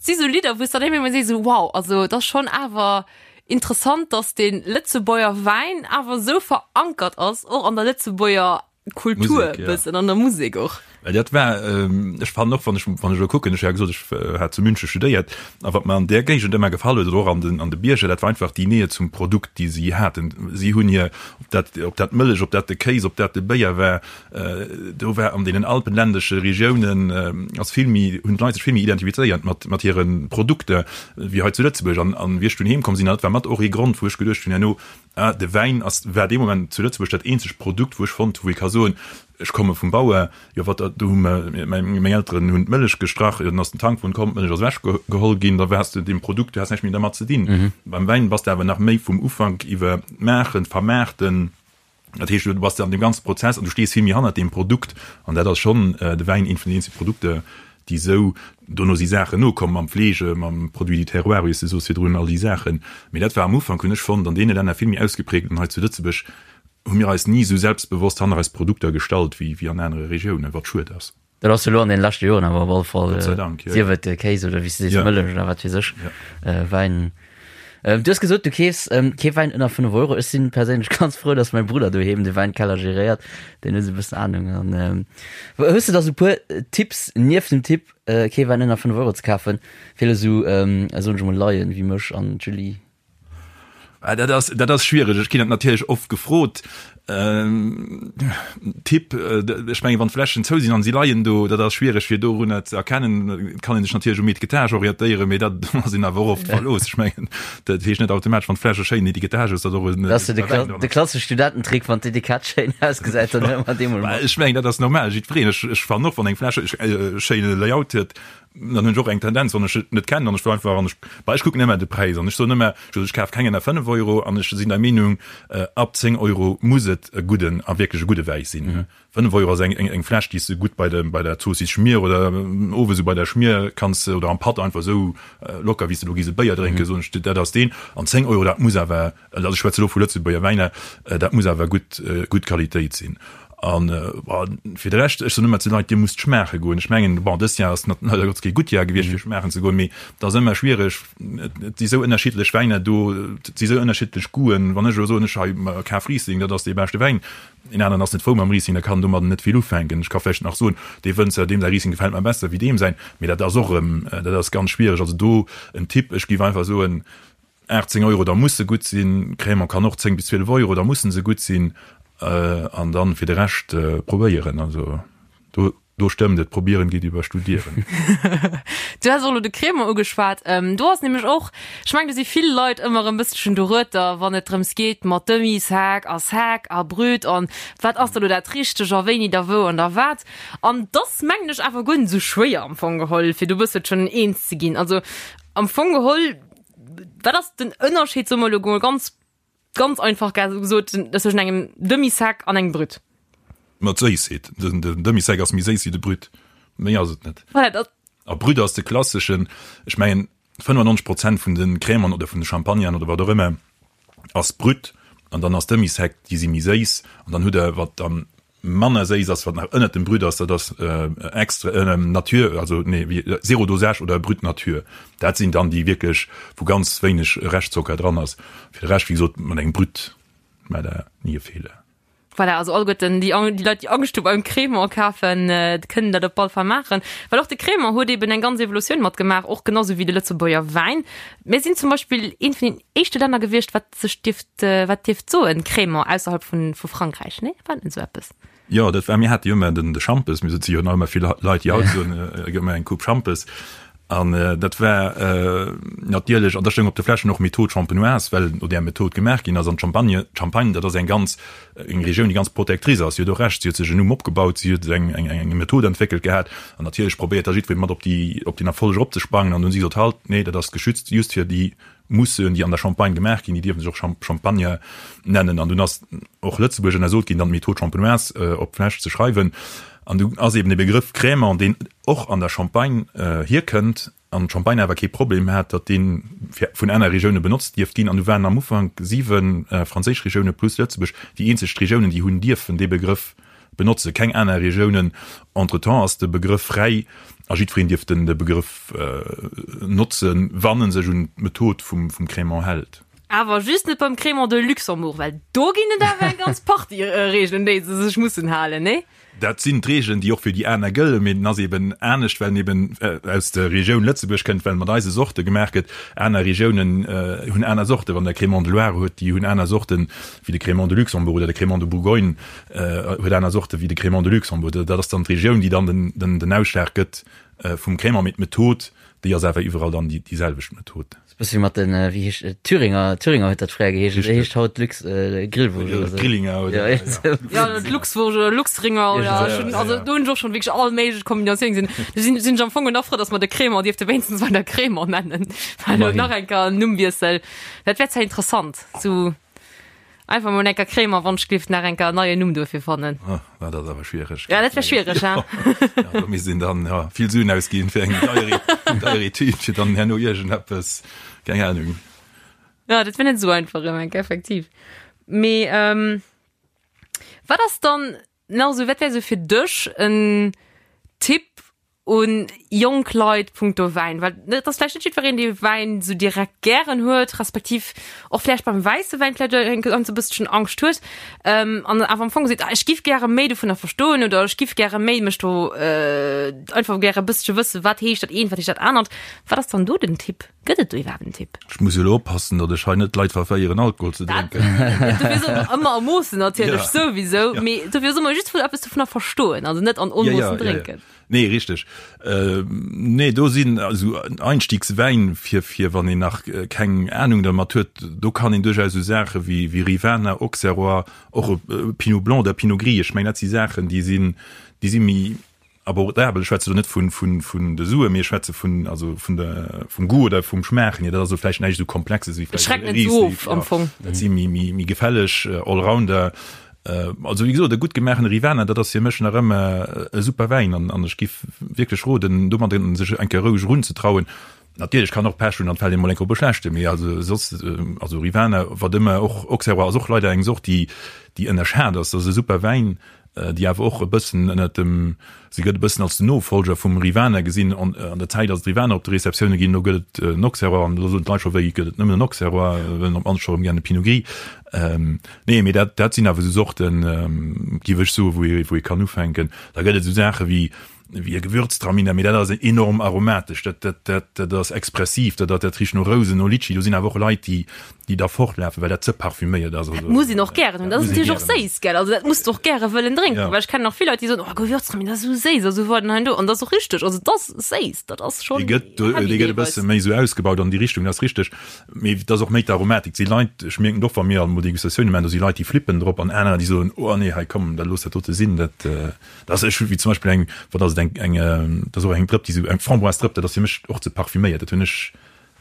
si sou Lidder, wou s dann ëmmer sees, sou wow, also et ass schonn awer interessant, datt de Lëtzebuerger Wäin awer sou verankert ass, och an der Lëtzebuerger Kultur Musek, ja. bëssen, an der Musek och. Well dat war, ech fannen och, wann ech, wann ech elo kucken, ech hu ja gesot, ech hat zu München studéiert, a wat mer an där Géigend ëmmer gefall huet, oder och an den, an de Bierger, dat war einfach déi Nähe zum Produkt, déi si haten. Si hunn hir, ob dat, ob dat d'Mëllech, ob dat de Kéis, ob dat de Béier war, Do war an deenen alpenländesche Regiounen ass vill méi, hunn d'Leit sech vill méi identifizéiert mat, mat hire Produkter wéi hei zu Lëtzebuerg. An, an wéi ech dunn heem komm sinn, dat war mat och ee Grond, wou ech geduecht hunn herno, ah, de Wäin ass, war dee Moment zu Lëtzebuerg dat eenzegt Produkt, wou ech fonnt hu wou ee ka soen, ech komme vum Bauer, jo wat, do hu mer, meng Elteren hunn d'Mëllech gestrach, jo dann ass den Tankwon komm, d'Mëllech ass ewech geholl ginn, da waars de deem Produkt, du has näischt méi dermat ze dinn. Beim Wäin bass de awer nach méi vum Ufank iwwer d'Maachen, d'Vermaarten, Dat heescht, du bass an deem ganze Prozess an du stees vill méi hannert deem Produkt. An dat ass schonn de Wäin eent vun den eenzege Produkter, déi esou, dono si Saachen nokomm mam Fleege, mam Produit du terroir, wéi s de soos virdrun, all déi Saachen. Mee dat war am Ufank, hunn ech fonnt, an deene Länner vill méi ausgeprägt. An hei zu Lëtzebuerg hu mir eis ni esou selbstbewosst hanner eis Produkter gestallt wéi an anere Regiounen, wat schued ass. Dat ass elo an den leschte Joren awer op alle Fall, Gott sei Dank, ja. sief et Kéis oder wéi s de sees, Ja. Mëllech oder wat weess ech, Ja. Wäin. Du hues gesot, du keefs kee Wäin ënner 5 Euro. Ech sinn perséinlech ganz frou, dass mäi Brudder doheem de Wäinkeller geréiert. Deen huet esou e bëssen Anung. An hues de da sou e puer Tipps, nieft dem Tipp, kee Wäin ënner 5 Euro ze kafen, fir esou, soen ech emol, Laien wéi mech an d'Julie? Ah, dat ass, dat ass schwiereg. Ech ginn dat natierlech oft gefrot. Ähm, Tipp, äh, ech menge wann d'Fläschen zou sinn an si leien do, dat ass schwiereg fir dorunner ze erkennen. Et kann een sech natierlech um Etikettage orientéieren, mee dat ass een awer och oft verlooss. Ech mengen, dat heescht net automatesch, wann d'Fläsch e schéinen Etikettage huet, datt och en Dat ass jo de, guter Wäin Kla dran de ass. klassesche Studententrick, wann d'Etikett schéin ausgesäit, dann huele mer dee mol mat. Ech mengen, dat ass normal, jiddwereen. Ech, ech fannen och, wann eng Fläsch e schéine Layout huet, Dann hunn ech och eng Tendenz, wann ech et net kennen an ech wëll einfach an ech, bah, ech kucken ëmmer de Präis an ech soen ëmmer, ech kaf keng ënner 5 Euro an ech sinn der Meenung, ab 10 Euro muss et e gudden a wierklech e gudde Wäi sinn. 5 Euro ass eng eng Fläsch, déi s de gutt bei de bei der Zoossiss Schmier oder owes esou bei der Schmier kanns oder am Patt einfach esou locker, wéi s de elo gees e Béier drénken, soen ech, dat ass deen. An 10 Euro, dat muss awer, also ech schwätze elo vu Lëtzebuerger Wäiner, dat muss awer gutt gutt Qualitéit sinn. An fir de Rescht, ech soen ëmmer zu den Leit, Dir musst schmaache goen. Ech mengen, bon, dëst Jahr ass nat leider Gottes kee gutt Jahr gewiescht, fir schmaachen ze goen, mee et ass ëmmer schwiereg, et si sou ënnerschiddlech Wäiner do, et si sou ënnerschiddlech Goûten. Wann ech elo soen, ech hei kaf Riesling, dat ass dee beschte Wäin, een aneren ass net frou mam Riesling, der kann domadden net vill ufänken. Ech ka vläicht nach soen, dee Wënzer, deem säi Riesling gefält mer besser wéi deem säin, mee dat ass och erëm, dat ass ganz schwiereg. Also do en Tipp, ech géif einfach soen, 18 Euro, da muss se gutt sinn. Crémant kann och 10 bis 12 Euro, da mussen se gutt sinn. An dann fir de Rescht probéieren. Also do, do stëmmt et, probieren geet iwwer studieren. Du has och elo de Crémant ugeschwat. Do ass nämlech och, ech mengen do si vill Leit ëmmer e bësselchen dorueter, wann et drëms geet mat Demi-sec a sec a brut an wat ass da lo dat Richteg a wéini da wou an da wat. An 't ass mengen ech awer guer net esou schwéier am Fong geholl, fir do e bësselchen eens ze ginn. Also am Fong geholl, Wat ass den Ënnerscheed, soe mer elo mol ganz, ganz einfach gesot, tëschent engem Demi-sec an engem Brut? Ma d'Séissheet. Den Demi-sec ass méi séiss wéi de Brut. Méi ass et net. Voilà, dat. A Brut ass de klasseschen, ech mengen 95 Prozent vun de Crèmen oder vun de Champagneren oder wat och ëmmer ass Brut an dann ass Demi-sec, déi si méi séiss an dann hutt Der, wat dann manner séiss ass, wat nach ënnert dem Brut ass, dat ass extra nature, also nee, wéi zéro dosage oder brut nature. Dat sinn dann déi wierklech, wou ganz wéineg Reschtzocker dran ass. Fir de Rescht, wéi gesot, mat engem Brut maacht Der ni e Feeler. Voilà, also alleguerten déi, déi Leit, déi Angscht hu beim Crémant kafen, kënnen dat op all Fall maachen. Well och de Crémant huet eben eng ganz Evolutioun matgemaach, och genau sou wéi de Lëtzebuerger Wäin. Mir sinn zum Beispill eent vun den éischte Länner gewiescht, wat sech dierft, wat dierft soen, Crémant ausserhalb vun, vu Frankräich, nee? War net esou eppes? Jo, dat war, mir hate jo ëmmer den, de Schampes, mir si jo nach ëmmer vill Leit, déi haut soen, gëtt mer eng Coupe Schampes. An dat war natierlech, an da stoung op de Fläschen och Méthode champenoise, well no där Method gemaach ginn ass. An d'Champagne, d'Champagne, dat ass eng ganz, eng Regioun, déi ganz protectrice ass. Si huet och Recht, si huet sech en Numm opgebaut, si huet eng, eng, eng Method entwéckelt gehat. An natierlech probéiert da jiddweree mat op déi, op deen Erfolleg eropzesprangen. An du hunn si gesot, Halt, nee, dat ass geschützt just fir déi Mousseuxen, déi an der Champagne gemaach ginn, déi dierfe sech och Champagner nennen. An dunn ass och Lëtzebuerg ënnersot ginn, dann d'Méthode champenoise op d'Fläsch ze schreiwen. An du ass eben de Begrëff Crémant, deen och an der Champagne hierkënnt, an d'Champagne awer kee Problem hat, datt dee vun aner Regioune benotzt dierft ginn. An du waren am Ufank 7 franséisch Regioune plus Lëtzebuerg déi eenzeg Regiounen, déi hunn dierfen dee Begrëff benotze keng aner Regiounen. Entretemps ass de Begrëff fräi a jiddwereen dierf den de Begrëff notzen, wann en sech un d'Method vum vum Crémant hält. Awer just net beim Crémant de Luxembourg, well do ginn et awer eng ganz Partie Reegelen, un déi se sech mussen halen, nee? Dat sinn d'Reegelen, déi och fir déi aner gëllen, mee den ass eben anescht, well en eben aus der Regioun Lëtzebuerg kënnt, well mat eise Sorte gemaach gëtt. Aner Regiounen hunn aner Sorten. Wann Der Crémant de Loire hutt, déi hunn aner Sorten wéi de Crémant de Luxembourg oder de Crémant de Bourgogne. Huet aner Sorte wéi de Crémant de Luxembourg. Dat ass dann d'Regioun, déi dann den Ausschlag gëtt vum Crémant. Mee d'Method, déi ass awer iwwerall dann déi selwecht Method. Ass e bësse wéi mat den, wéi heescht et, Thüringer, Thüringer huet dat fréier geheescht, dat heescht haut Lux, Grillwurscht oder sou. Grillinger oder, ja. Ja, Luxwurscht oder Luxringer oder, ech hunn, also do hunn ech och schonn wierklech all méiglech Kombinatiounen gesinn. Do sinn, sinn ech am Fong nach frou, datt mer de Crémant dierfte wéinstens weider Crémant nennen, well elo nach eng Kéier en Nummwiessel, dat wär zwar interessant, sou. Einfach mol enker Krémer Wonschglift nach enker en neien Numm duerfir fannen. Ah, dat ass awer schwiereg. Ja, dat wär schwiereg, ha? Ja, do misst een dann ja, vill Suen ausginn fir eng deier, deier Etüd, fir dann herno iergendeppes, keng Ahnung. Ja, dat wär net esou einfach erëm enk, effektiv. Mee ähm, wat ass dann nach esou, wat wär esou fir dech en Tipp un jonk Leit punkto Wäin? Well et ass vläicht net jiddwereen, dee Wäin esou direkt gären huet, respektiv och vläicht beim wäisse Wäin vläicht e ganz e bësselchen Angscht huet an awer am Fong seet, ah ech giff gäre méi dovunner verstoen oder ech giff gäre méi mech do einfach gäre e bëssche wëssen, wat heescht dat eent, wat heescht dat anert. Wat ass dann do den Tipp? Gëtt et do iwwerhaapt en Tipp? Ech muss elo oppassen, datt ech hei net d'Leit verféieren, Alkohol ze drénken. Dofir soll mer ëmmer a Moossen natierlech souwisou, mee dofir soll mer just eppes dovunner verstoen, also net an Onmoossen drénken. Nee, richteg. Nee, do sinn esou Einstiegswäin, fir, fir wann een nach keng Ahnung dermat huet, do kann een duerchaus esou Saache wéi, wéi Rivaner, Auxerrois, och e Pinot Blanc oder Pinot Gris, ech mengen, dat si Saachen, déi sinn, déi si méi abordabel. Ech schwätze do net vun, vun, vun de Suen, mee ech schwätze vun, also vun der, vum Goût oder vum Schmaachen hier. Dat ass elo vläicht näischt esou Komplexes wéi vläicht e Riesling. Am Fong. Dat si méi, méi, méi gefälleg Allrounder. Also wéi gesot, e gutt gemaachene Rivaner, dat ass fir mech nach ëmmer e super Wäin an an ech giff wierklech roden, domadder sech eng Kéier roueg erunzetrauen. Natierlech kann och Pech hunn an et fält ee mol eng Kéier op e schlechte, mee also soss, also Rivaner, wat ëmmer och, Auxerrois ass och leider eng Sort, déi déi ënnerschat ass. Dat ass e super Wäin. déi awer och e bëssen ënnert dem, se gëtt e bëssen als den Nofolger vum Rivaner gesinn. An an der Zäit ass et Rivaner op de Receptioune ginn, elo gëtt et en Auxerrois an elo soen d'Leit scho, wéi gëtt et nëmmen en Auxerrois, wëllen op d'mannst scho erëm gär e Pinot Gris. Nee, mee dat dat sinn awer esou Sorten, géif ech soen, wou ee wou ee kann ufänken. Da gëtt et esou Saache wéi wéi e Gewürztraminer, mee dat ass enorm aromatesch, dat, dat, dat, dat ass expressiv, dat, dat richt no Rousen, no Litschi. Do sinn awer och Leit, déi, déi da fortlafen, well dat ze parfüméiert ass. Dat muss een och gären hunn. Dat ass natierlech och séiss, gell? Also dat muss de och gäre wëllen drénken, well ech kennen och vill Leit, déi soen, oh Gewürztraminer, dat ass esou séiss a sou weider an hei an do. An dat ass och richteg, also et ass séiss, dat ass schonn Dee gëtt, heavy dee gëtt e deelweis. bësse méi esou ausgebaut an déi Richtung, dat ass richteg. Mee et ass och méi d'Aromatik. Et si Leit, ech mierken et och, wa mir alt mol Degustatioune maachen, do si Leit, déi flippen drop an anerer, déi soen, oh nee, hei komm, da looss dat dote sinn, dat, Dat ass ech wéi zum Beispill eng, wat ass et, eng, eng, dat ass och eng Drëpp, déi sou, eng Framboise-Drëpp, dat ass fir mech och ze parfüméiert. Dat hunn ech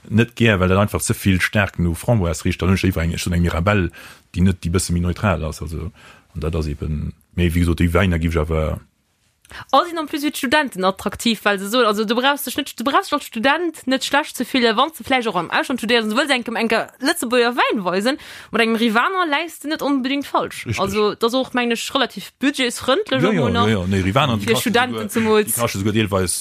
net gär, well dat einfach ze vill staark no Framboise richt. Dann hunn ech léiwer eng, ech soen eng Mirabelle, déi net, déi bësse méi neutral ass. Also, an dat ass eben, mee wéi gesot, déi Wäiner giff ech awer. A sinn en plus fir d'Studenten attraktiv, well se soen, also du brauchs dech net, du brauchs dech als Student net schlecht ze fillen, wann s de vläicht och am Ausland studéiers an du wëlls engem enker Lëtzebuerger Wäin weisen, mat engem Rivaner läis de net onbedéngt falsch. Richtig. Also dat ass och, mengen ech, relativ budgetsfrëndlech Jo, jo, och nach. jo, jo, nee, Rivaner, déi Fir kaschte Studenten souguer, zemools. déi kaschte souguer deelweis,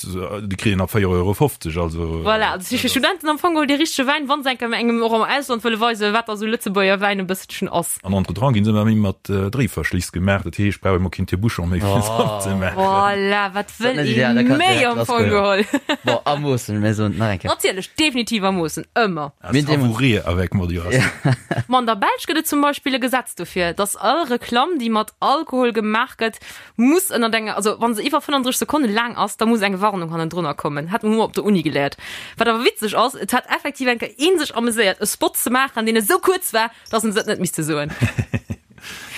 déi kritt een ab 4,50 Euro, also. Voilà, also si fir Studenten am Fong geholl dee richtege Wäin, wa se enker engem och am Ausland wëlle weisen, wat da sou Lëtzebuerger Wäin e bësselchen ass. An entretemps ginn se ëmmer méi mat Dréiverschliss gemaach, dat heescht, brauch ee mol keen Tire-bouchon méi fir se opzemaachen. Voilà, wat wëll ee méi am Fong geholl? Bon, a Moossen, mir soen et nach eng Kéier. Natierlech, definitiv a Moossen, ëmmer. À savourer avec modération. Ma an der Belsch gëtt et zum Beispill e Gesetz dofir, dass all Reklamm, déi mat Alkohol gemaach gëtt, muss ënnert enger, also wa se iwwer 35 Sekonne laang ass, da muss eng Warnung hannendrunner kommen. Hat hu mer op der Uni geléiert. Wat awer witzeg ass, et hat effektiv eng Kéier ee sech ameséiert, e Spot ze maachen, deen esou kuerz war, dass en se et net misste soen.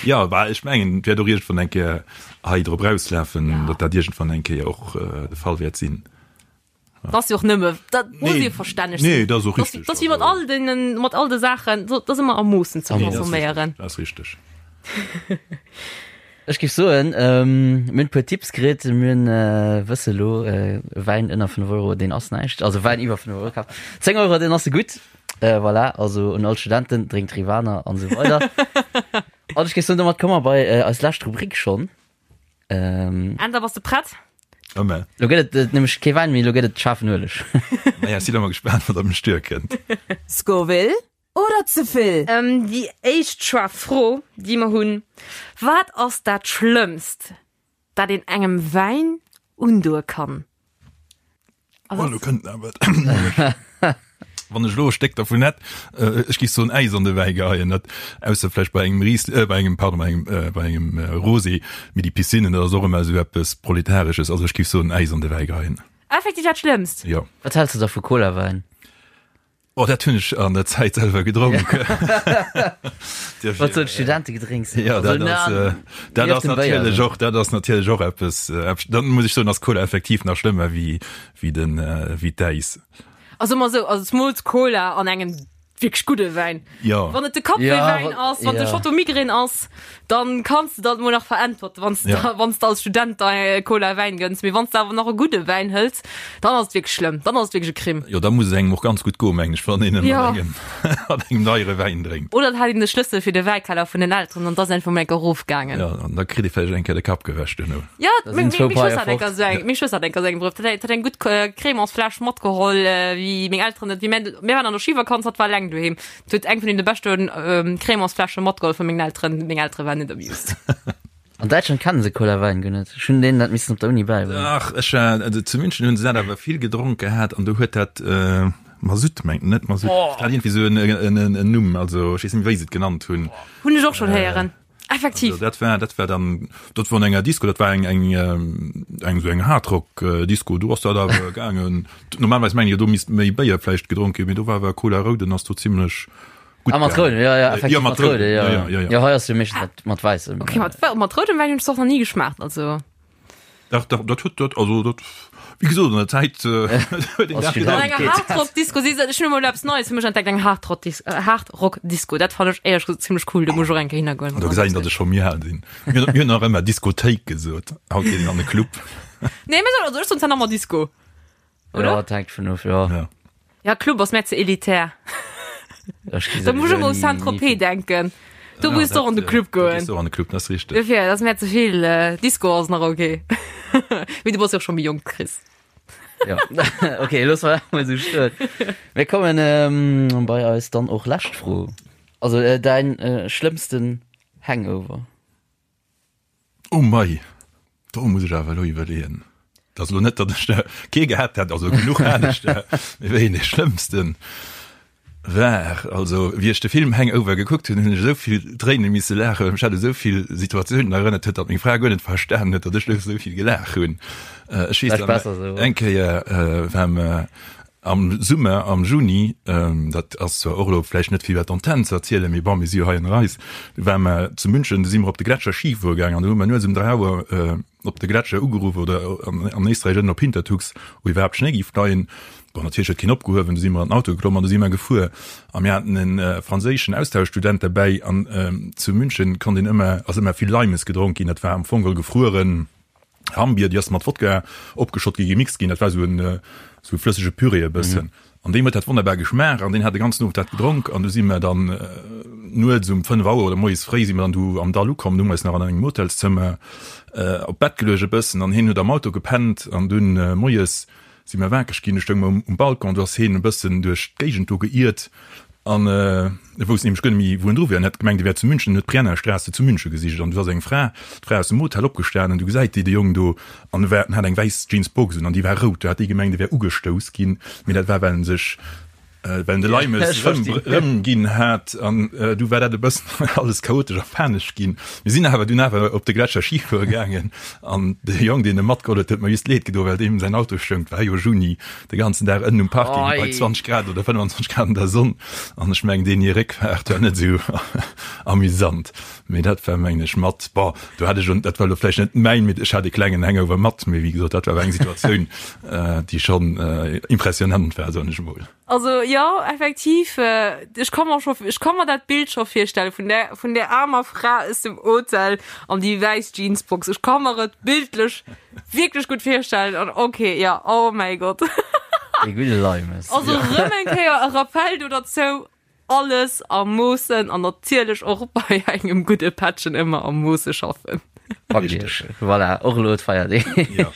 Jo, bah, ech mengen, et wäert och iergendwann eng Kéier hei drop erauslafen, datt dat iergendwann eng Kéier och de Fall wäert sinn. Dat ass jo och nëmme, dat muss Nee, jo verstänneg sinn. nee, dat ass och richteg. Dat ass wéi mat all deenen, mat all de Saachen, dat ass ëmmer a Moossen ze Nee, dat ass consomméieren. richteg, dat ass richteg. Ech géif soen, mir hunn e puer Tipps kritt. Mir hunn, wësse elo, Wäin ënner 5 Euro, deen ass näischt. Also Wäin iwwer 5 Euro kaf. 10 Euro, deen ass gutt. Voilà, also un all Studenten, drénkt Rivaner an esou weider. An ech géif soen, domat komme mer bei eis lescht Rubrik schonn. Änder, bass de prett? Ëmmer. Lo gëtt et nämlech kee Wäin méi, lo gëtt et schaarfen Ueleg. Naja, ech sinn ëmmer gespaant, wat op mech duerkënnt. Scoville oder ze vill? Déi éischt schwaar Fro, déi mer hunn, Wat ass dat Schlëmmst, dat een engem Wäin undoe kann? Oh, lo kënnt awer Wann ech elo e Stéck dervun hätt, ech géif soen Äis an de Wäi geheien, dat ausser vläicht bei engem Ries, bei engem, pardon, bei engem, bei engem Rosé, mee déi Piscinnen, dat ass och ëmmer esou eppes Proletaresches, also ech géif soen Äis an de Wäi geheien. Effektiv dat Schlëmmst? Jo. Wat häls de da vu Colawäin? Oh, dat hunn ech an der Zäit selwer gedronk. Wat sou d'Studentegedrénks. Ja, dat ass, äh, dat ass natierlech och, dat ass natierlech och eppes, äh, dann muss ech soen, ass Cola effektiv nach schlëmmer wéi, wéi den, äh, wéi d'Äis. Also mol sou, also zemools Cola an engem wierklech gudde Wäin. Ja. Wann et de Kaffeewäin ass, wann de Chateau Migraine ass, dann kanns de dat mol nach veräntwerten, wann s ja. wann s de als Student da Cola Wäin gënns. Mee wann s de awer nach e gudde Wäin hëls, dann ass et wierklech schlëmm, dann ass et wierklech e Crime. Jo, da muss et engem och ganz gutt goen, mengen ech, wann een ja. mat engem, mat engem deiere Wäin drénkt. Oder et hat een de Schlëssel fir de Wäikeller vun den Elteren an 't ass einfach mol enker erofgaangen. Ja, an da kritt ee vläicht eng Kéier de Kapp gewäsch duerno. Ja, meng Schwëster hat enker esou eng, meng Schwëster hat enker esou eng Brëf. Dat hat eng gutt Crémants-Fläsch matgeholl, wéi meng Elteren net, wéi mir, mir waren an der Schivakanz, hatt war eleng doheem. Huet eng vun deene beschte Crémants-Fläsche matgeholl vu mengen Elteren. Meng Eltere waren net amused. An Däitschland kennen se Cola-Wäin guer net. Ech hunn deenen dat missen op der Uni bäibréngen. Ach, ech war, also zu München hunn se dat awer vill gedronk gehat an do huet dat Masutt, mengt, net Masutt, dat hat iergendwéi esou en, en, en Numm, also ech weess net méi, wéi se et genannt hunn. Hunn ech och schonn héieren. Effektiv. Also dat war, dat war dann, dat war an enger Disco, dat war eng, eng, eng esou eng Hardrock Disco, do ass dat awer gaangen. Normalerweis mengen ech, do misst méi Béier vläicht gedronk ginn, mee do war awer Cola Rouden ass do zimlech gutt Ah, mat gaangen. roudem, ja, ja, effektiv Ja, mat mat roudem, roudem, ja, ja, ja, ja, ja. Ja, hei ass jo meeschtens mat, mat wäissem. Okay, mat, mat roudem Wäin hunn ech et och nach ni geschmaacht, also. Dach, dach, dat huet dat, also dat, wéi gesot, an der Zäit huet een dat An enger Hardrock-Disco, si se, ech hunn emol eppes Neies fir mech entdeckt, eng Hardrock-Hardrock-Disco, dat fannen ech éierlech gesot zimlech cool, do muss ech och eng Kéier hinnergoen. Do gesäit een, datt ech scho méi al sinn. Mir hunn nach ëmmer Diskothéik gesot, haut geet een an e Club. Nee, mir soen, also ech soen zwar nach ëmmer Disco. Oder? Ja, dat hänkt vun of, ja. Ja. Ja, Club ass mär ze elitär. Ech gi Da muss ech souwisou ëmmer u ni- Saint-Tropez ni- denken. Do muss du och an de Club goen. Do an de Club, dat ass richteg. Dofir, dat ass mär ze vill. Disco ass nach ok. Mee du bass jo och scho méi jonk, Chris. Ja. Ok, loosse mer dat mol esou stoen. Mir kommen ähm, bei eis dann och lescht Fro. Also äh, däin äh, schlëmmsten Hangover? Oh mei, do muss ech awer elo iwwerleeën. Dat ass elo net, datt ech der kee gehat hätt, also genuch hat ech der, mee wéi een dee schlëmmsten war. Also wéi ech de Film Hangover gekuckt hunn, hunn ech esou vill Tréine misse laachen, well mech dat u esou vill Situatiounen erënnert huet, datt meng Fra guer net verstanen huet, datt ech elo esou vill gelaach hunn. Ech weess nach, eng Kéier war mer Am Summer, am Juni, dat ass zwar och elo vläicht net fir iwwer d'Antenn ze erzielen, mee bon, mir si jo hei ënner eis, du ware mer zu München, du si mer op de Gletscher Ski fuere gaangen an du hu mer nuets um 3 Auer op de Gletscher ugeruff oder an Éisträich ënnen op Hintertux, wou iwwerhaapt Schnéi géif leien. Bon, natierlech huet keen opgehuewen, du si mer an den Auto geklomm an du si mer gefuer. A mir haten e franséischen Austauschstudent derbäi an zu München konnt een ëmmer, ass ëmmer vill Limes gedronk ginn, dat war am Fong geholl gefrueren. Hammbier, déi ass mat Wodka opgeschott gi, gemixt ginn. Dat war esou en esou e flëssege Püree e bëssen. An deem huet dat wonnerbar geschmaacht an deen hat de ganzen Owend dat gedronk. An du si mer dann nuets um 5 Auer oder moies fréi si mer dann du am Dall ukomm. Du hu mer eis nach an engem Hotelszëmmer op d'Bett geluecht e bëssen an hien huet am Auto gepennt. An dunn moies Si mer wakereg ginn, du stoung mer um Balcon, du ass heen e bëssen duerch d'Géigend do geiert an e wousst nämlech guer net méi wou en dru wier an hat gemengt e wär zu München an huet d'Briennerstraße zu München gesicht an du ass eng Fra, d'Fra aus dem Hotel opgestanen, du gesäit déi de Jong do an e war, en hat eng wäiss Jeansbox un an déi war rout, du hat déi gemengt e wär ugestouss ginn, mee dat war well en sech well en de Leimes rëm rëm ginn hat an du war dat e bëssen alles chaotesch a panesch ginn. Mir sinn awer dunn awer op de Gletscher Ski fuere gaangen an de Jong deen e matgeholl huet, huet mer just leed gedo well deem säin Auto stoung, et war jo Juni, de ganzen Dag ënnen um Parking bei 20 Grad oder 25 Grad an der Sonn an ech mengen deen hir Réckfaart war net esou amüsant. Mee dat war mengen ech mat, bon do hat ech un, dat war elo vläicht net mäin, mee ech hat e klengen Hangover mat, mee wéi gesot dat war awer eng Situatioun déi schonn impressionant war, soen ech emol. Also jo, effektiv, ech ka mer scho, ech ka mer dat Bild scho virstelle vun där, vun där aarmer Fra aus dem Hotel an déi wäiss Jeansbox. Ech ka mer et bildlech wierklech gutt virstellen an ok, jo, oh mäi Gott. Dee gudde Leimes. Also rëm eng Kéier e Rappell do derzou, Alles a Moossen an natierlech och bei engem gudde Pättchen ëmmer a Moosse schaffen. Richteg. Voilà, och elo d'Feierdeeg. Ja.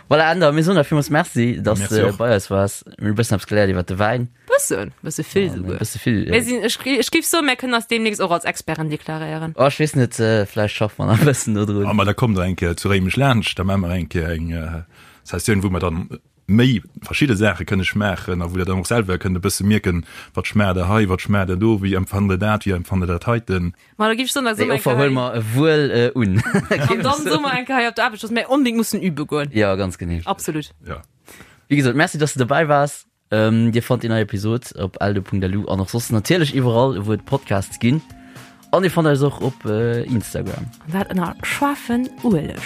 Voilà, Änder, mir soen der villmools Merci, dass Merci de bei eis waars. Mir hunn e bëssen eppes geléiert iwwer de Wäin. Bëssen, bësse vill souguer. Bësse vill. Mir sinn, ech, ech géif soen, mir kënnen eis deemnächst och als Experten deklaréieren. Oh, ech weess net, vläicht schaffe mer nach e bëssen do drun. Ah, ma da kommt der eng Kéier zu Réimech laanscht, da maache mer eng Kéier eng Sessioun, wou mer dann méi verschidde Saache kënne schmaachen a wou der dann och selwer kënnt e bësse mierken, wat schmaacht der hei, wat schmaacht der do, wéi empfannt der dat, wéi empfannt der dat heiten. Ma da géif ech soen, da soe mer eng Kéier hei. Déi Offer huele mer wuel un. An dann soe mer eng Kéier hei op der Aarbecht, dass mir onbedéngt mussen übe goen. Jo, ganz genee. Absolut. Jo. Wéi gesot, Merci, dass de dobäi waars. Dir fannt déi nei Episod op eldo.lu an och soss natierlech iwwerall, wou et Podcasts ginn. An dir fannt eis och op Instagram. An dat ënner Schwaffen Ueleg.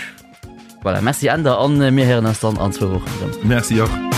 Voilà, merci Änder an mir héieren eis dann an zwou Wochen erëm. Merci och.